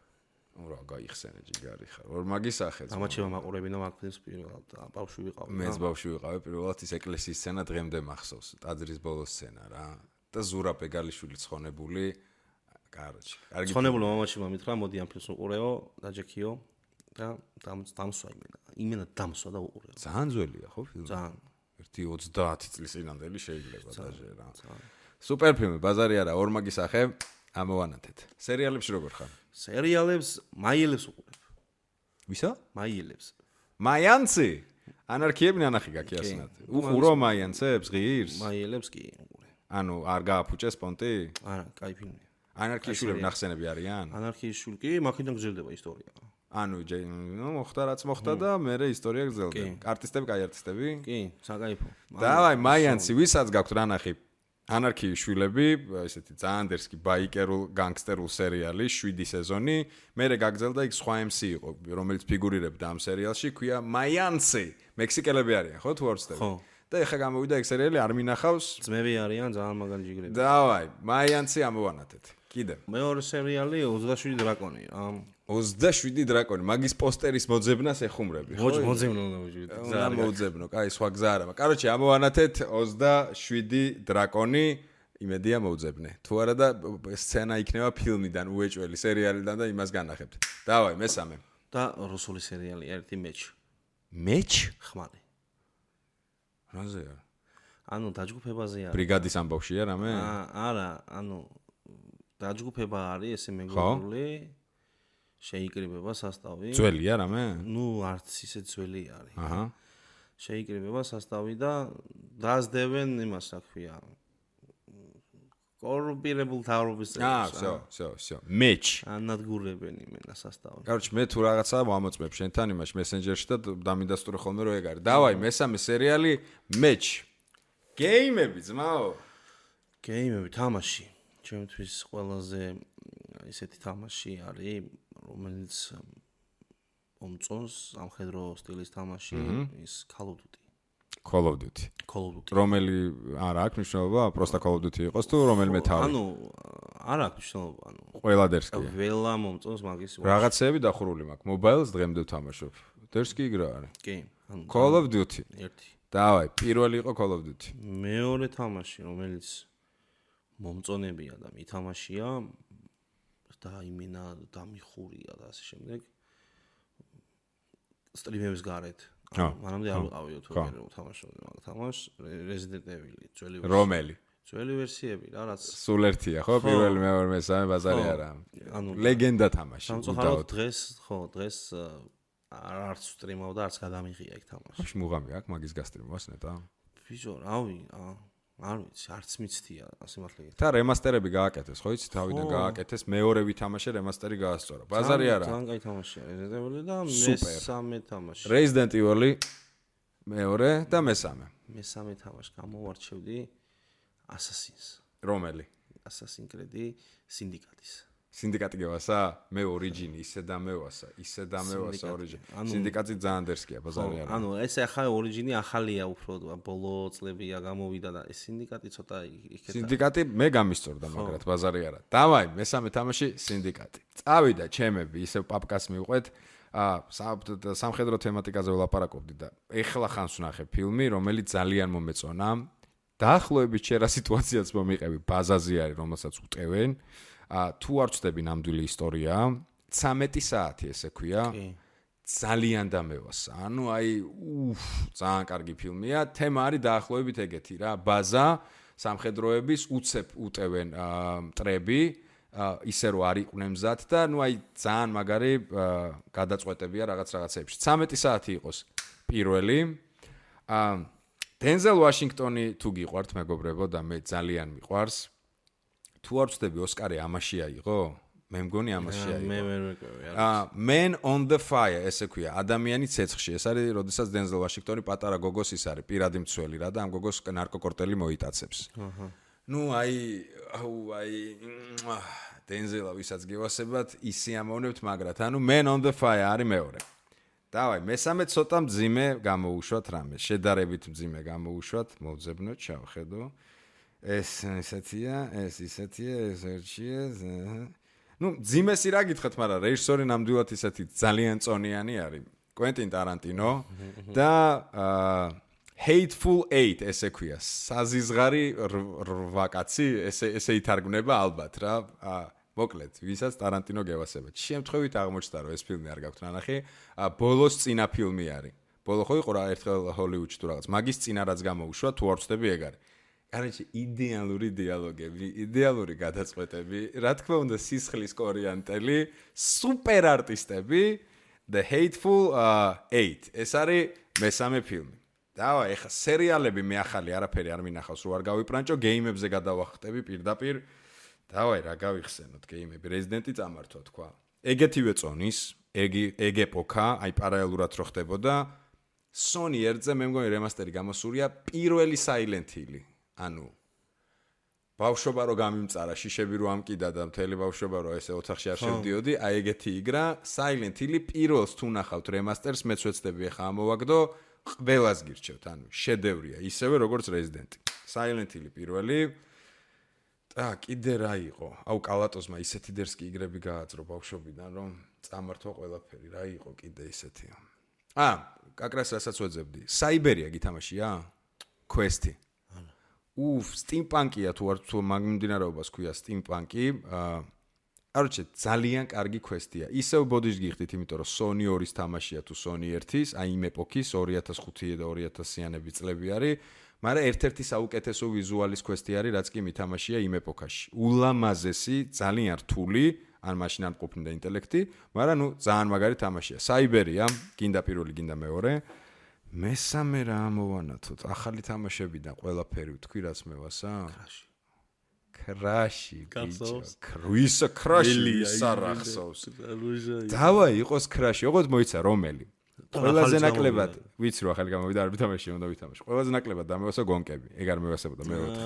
რა გაიხსენე ჯიგარი ხარ. ორმაგი სახე. ამაჩება მაყურებინა მაგ ფილმს პირველად და ბავშვი ვიყავი. მეც ბავშვი ვიყავი პირველად ის ეკლესიის სცენა დღემდე მახსოვს. ტაძრის ბოლოს სცენა რა. და ზურაბ ეგალიშვილი ცხონებული. კაროჩი. კარგი. ცხონებული მამაჩი მომით რა, მოდი ამ ფილმს უყურეო, დაჯექიო და დამსვა იმენა დამსვა და უყურეო. ძალიან ძველია ხო ფილმი? ძალიან 30 წლის წინანდელი შეიძლება დაჟე რა. სუპერ ფილმი, ბაზარი არა, ორმაგი სახე, ამოვანათეთ. სერიალებში როგორ ხარ? სერიალებს მაიელებს უყურებ. ვისა? მაიელებს. მაიანცი? ანარქიები ნანახი გაკიასნათ. უყურო მაიანცებს ღირს? მაიელებს კი უყურე. ანუ არ გააფუჭეს პონტი? არა, კაი ფილმია. ანარქიაშვილები ნახსენები არიან? ანარქიაშვილი კი, მაქედან გრძელდება ისტორია. ანუ მოხდა რაც მოხდა და მერე ისტორია გრძელდება. არტისტები, კაი არტისტები? კი, საკაიფო. დავაი, მაიანცი, ვისაც გაქვთ რა ნახი? ანარქიის შვილები, ესეთი ზანდერსკი ბაიკერულ განგსტერულ სერიალი 7 სეზონი, მერე გაგრძელდა იქ სხვა MC იყო, რომელიც ფიგურირებდა ამ სერიალში, ქვია მაიანცი. მექსიკელები არიან, ხო თუ არ ვცდები? ხო. და ეხა გამოვიდა ეგ სერიალი, არ მინახავს. ძმები არიან ძალიან მაგარი ჯიგრები. დავაი, მაიანცი ამოვანათეთ. კიდე. მეორე სერიალი 27 დრაკონი. 27 დრაკონი, მაგის პოსტერის მოძებნას ეხუმრები, ხო? მოძებნო უნდა ვიჯვით. უნდა მოძებნო, კაი, სხვა გზა არა. კაროჩე, ამოვანათეთ 27 დრაკონი, იმედია მოუძებნე. თუ არა და სცენა იქნება ფილმიდან, უეჭველი სერიალიდან და იმას განახებთ. დავაი, მესამე. და რუსული სერიალი ერთი მეჩ. მეჩ? ხმალი. რაზეა? ანუ დაჯგუფებაზე არის. ბრიგადის ამბავშია რამე? არა, ანუ დაჯგუფება არის ესე მეგობრული. შეიკრიბება სასტავი. ძველია რამე? ნუ არც ისე ძველი არის. აჰა. შეიკრიბება სასტავი და დაძდებენ იმას რა ქვია. კორუმპირებულ თავრობის წევრებს. всё. მეჩ. ანადგურებენ იმენა სასტავი. კაროჩე, მე თუ რაღაცა ვამოწმებ შენთან იმაში მესენჯერში და დამიდასტურე ხოლმე რომ ეგ არის. დავაი, მესამე სერიალი მეჩ. გეიმები ძმაო. გეიმები თამაში. ჩემთვის ყველაზე ისეთი თამაში არის, რომელიც მომწონს სამხედრო სტილის თამაში ის Call of Duty. Call of Duty. რომელი არა აქვს მნიშვნელობა, პროსტა Call of Duty იყოს თუ რომელიმე თავი. ანუ არ აქვს მნიშვნელობა, ანუ ყველა დერსკია. ველა მომწონს მაგის. რაღაცეები დახურული მაქვს. Mobile-ს დღემდე ვთამაშობ. დერსკი იგრა არის. კი, ანუ Call of Duty. ერთი. დავაი, პირველი იყო Call of Duty. მეორე თამაში, რომელიც მომწონებია და მითამაშია და იმენა დამიხურია და ასე შემდეგ. სტრიმების გარეთ. მანამდე არ ვიყავი თუ ვერ ვთამაშობდი მაგ თამაშს, Resident Evil ძველი ვერსია. რომელი? ძველი ვერსიები რა, რაც სულ ერთია, ხო? პირველი, მეორე, მესამე ბაზარი არა. ანუ ლეგენდა თამაში. სამწუხაროდ დღეს არც სტრიმავ და არც გადამიღია იქ თამაში. ხოშ მუღამი აქვს მაგის გასტრიმოს ნეტა. ბიჭო, რავი, არ ვიცი, არც მიცდია ასე მართლა. და რემასტერები გააკეთეს, ხო იცი, თავიდან გააკეთეს, მეორე ვითამაშე რემასტერი გაასწორა. ბაზარი არა. ძალიან კაი თამაშია Resident Evil და მესამე თამაში. Resident Evil მეორე და მესამე. მესამე თამაში გამოვარჩევდი Assassin's. რომელი? Assassin's Creed Syndicate-ის. სინდიკატი გევასა? მე ორიჯინი ისე დამევასა ორიჯინი. სინდიკატი ძალიან დერსკია, ბაზარი არა. ანუ ეს ახლა ორიჯინი ახალია უფრო, ბოლო წლებია გამოვიდა და ეს სინდიკატი ცოტა იქეთ. სინდიკატი მე გამისწორდა, მაგრამ ბაზარი არა. დავაი, მესამე თამაში სინდიკატი. წავიდა ჩემები, ისე პაპკას მივყვეთ. სამხედრო თემატიკაზე ვლაპარაკობდი და ეხლა ხანს ვნახე ფილმი, რომელიც ძალიან მომეწონა. დაახლოებით შერა სიტუაციაც მომიყევი, ბაზაზე არის, რომელსაც უტევენ. თუ არ ვწდები ნამდვილი ისტორია, 13 საათი ესე ქვია. ძალიან დამევასა. ანუ აი, ძალიან კარგი ფილმია. თემა არის დაახლოებით ეგეთი რა, ბაზა, სამხედროების უცებ უტევენ მტრები, ისე რომ არ იყვნენ მზად და ნუ აი ძალიან მაგარი გადაწყვეტებია რაღაცებში. 13 საათი იყოს პირველი. დენზელ ვაშინგტონი თუ გიყვართ მეგობრებო და მე ძალიან მიყვარს. თუ არ ვწდები ოსკარი ამაში აიღო? მე მგონი ამაში აიღო. მე ვერ ვეკავი. Man on the Fire ესე ქვია, ადამიანი ცეცხლში. ეს არის, როდესაც დენზელ ვაშინგტონი პატარა გოგოს ის არის, პირადი მცველი რა და ამ გოგოს ნარკოკორტელი მოიტაცებს. ნუ აი დენზელა ვისაც გევასებათ, ისიამოვნებთ, მაგრამ ანუ Man on the Fire არის მეორე. დავაი, მესამე ცოტა მძიმე გამოუშვათ რამე, შედარებით მძიმე გამოუშვათ, მოვძებნოთ, შევხედო. ეს ისეთია, ეს ერთია. ნუ ძიმესი რა გითხეთ, მაგრამ რეჟისორი ნამდვილად ისეთი ძალიან წონიანი არის. კვენტინ ტარანტინო და Hateful Eight ესე ქვია. საზიზღარი 8 კაცი, ესე ითარგმნება ალბათ რა. მოკლედ, ვისაც ტარანტინო გევასებათ. შემთხვევით აღმოჩნდა, რომ ეს ფილმი არ გაქვთ ნანახი, ბოლოს წინა ფილმი არის. ბოლო ხო იყო რა ერთხელ ჰოლივუდში თუ რაღაც. მაგის წინა რაც გამოუშვა, თუ არ ვწდები ეგ არის. კაროჩე იდეალური დიალოგები, იდეალური გადაწყვეტები, რა თქმა უნდა სისხლის კორიანტელი, სუპერ არტისტები, The Hateful Eight. ეს არის მესამე ფილმი. დავა, ეხა სერიალები მე ახალი არაფერი არ მინახავს, რო არ გავიპრანჭო, გეიმებზე გადავახტები პირდაპირ. დავაი, რა გავიხსენოთ გეიმები, Resident-ი წამართვა თქვა. ეგეთივე წონის, ეგ ეპოქა, აი პარალელურად რო ხდებოდა, Sony ერთზე მე მგონი რემასტერი გამოსულია პირველი Silent Hill. ანუ ბავშვობა რო გამიმწარა, შიშები რო ამკიდა და მთელი ბავშვობა რო ესე ოთახში არ შევდიოდი, აი ეგეთი იგრა, Silent Hill პირველს თუ ნახავთ რემასტერს, მეც ვეცდები ახლა ამოვაგდო, ყველას გირჩევთ, ანუ შედევრია, ისევე როგორც Resident. Silent Hill პირველი. კიდე რა იყო? აუ კალატოზმა ისეთი დერსკი იგრები გააძრო ბავშვობიდან, რომ წამართვა ყველაფერი, რა იყო კიდე ისეთი. კაკრას რასაც ვეძებდი. Cyberia გითამაშია? Quest-ი. Steampunk-ია თუ არ თუ მაგმდინარეობას ქვია Steampunk-ი. არჩე ძალიან კარგი Quest-ია. ისევ ბოდიშს გიხდით, იმიტომ რომ Sony 2-ის თამაშია თუ Sony 1-ის, აი იმ ეპოქის 2005 და 2000-იანები წლები არის. მაგრამ ერთ-ერთი საუკეთესო ვიზუალის Quest-ი არის, რაც კი მითამაშია იმ ეპოქაში. ულამაზესი, ძალიან რთული, ან მაშინ არ მყოფნიდა ინტელექტი, მაგრამ ნუ ძალიან მაგარი თამაშია. Cyberia, გინდა პირველი, გინდა მეორე. მესამე რა ამოვანათოთ? ახალი თამაშებიდან ყველაფერი ვთქვი, რაც მევასა? Crash. Cruisa Crash სარახსოვს. დავაი, იყოს Crash, ოღონდ მოიცა რომელი? ყველაზე ნაკლებად, ვიცი რომ ახალი გამოვიდა, არ ვითამაში, უნდა ვითამაშო. ყველაზე ნაკლებად დამევასა გონკები. ეგ არ მევასებოდა მე 4.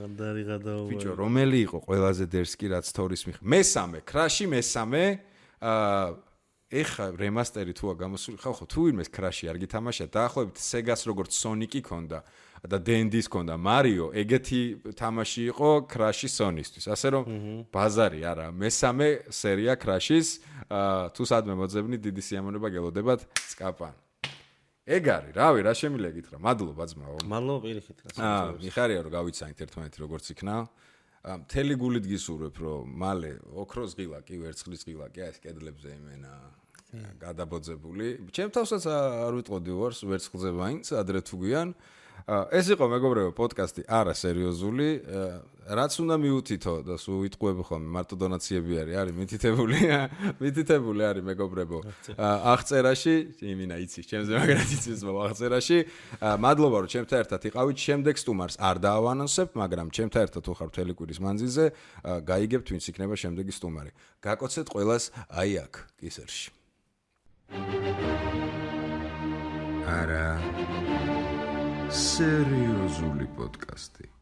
ანდარი გადაუვა. ბიჭო, რომელი იყო ყველაზე დერსკი რაც თორის მიხ? მესამე, Crash-ი მესამე, ეხა რემასტერი თუა გამოსული, ხო, თუ ვინმეს Crash-ი არ გითამაშა, დაახლოებით Sega-ს როგორც Sonic-ი ქონდა და D&D-ს ქონდა Mario, ეგეთი თამაში იყო Crash-ი Sony-ისთვის. ასე რომ ბაზარი არა, მესამე სერია Crash-ის, თუ სადმე მოძებნი, დიდი სიამოვნება გელოდებათ სკაპან. ეგ არის, რავი, რა შემიძლია გითხრა. მადლობა ძმაო. მადლობა პირიქით. მიხარია რომ გავიცანით ერთმანეთი როგორც იქნა. მთელი გულით გისურვებ რომ მალე ოქროს ღილა კი ვერცხლის ღილა კი ეს კედლებზე იმენა გადაბოძებული. ჩემ თავსაც არ ვიტყოდი ვარს ვერცხლზე ვაინც ადრე თუ გვიან. ეს იყო მეგობრებო პოდკასტი არა სერიოზული. რაც უნდა მიუთითო და სულ ვიტყუები ხოლმე მარტო დონაციები არის მითითებული არის მეგობრებო. აღწერაში იმინა იცის ჩემზე მაგრად იცის აღწერაში. მადლობა რომ ჩემთან ერთად იყავით. შემდეგ სტუმარს არ დაავანონსებ, მაგრამ ჩემთან ერთად თუ ხარ მთელი კვირის მანძილზე, გაიგებთ ვინც იქნება შემდეგი სტუმარი. გაკოცეთ ყველას აი აქ კისერში. არა სერიოზული პოდკასტი.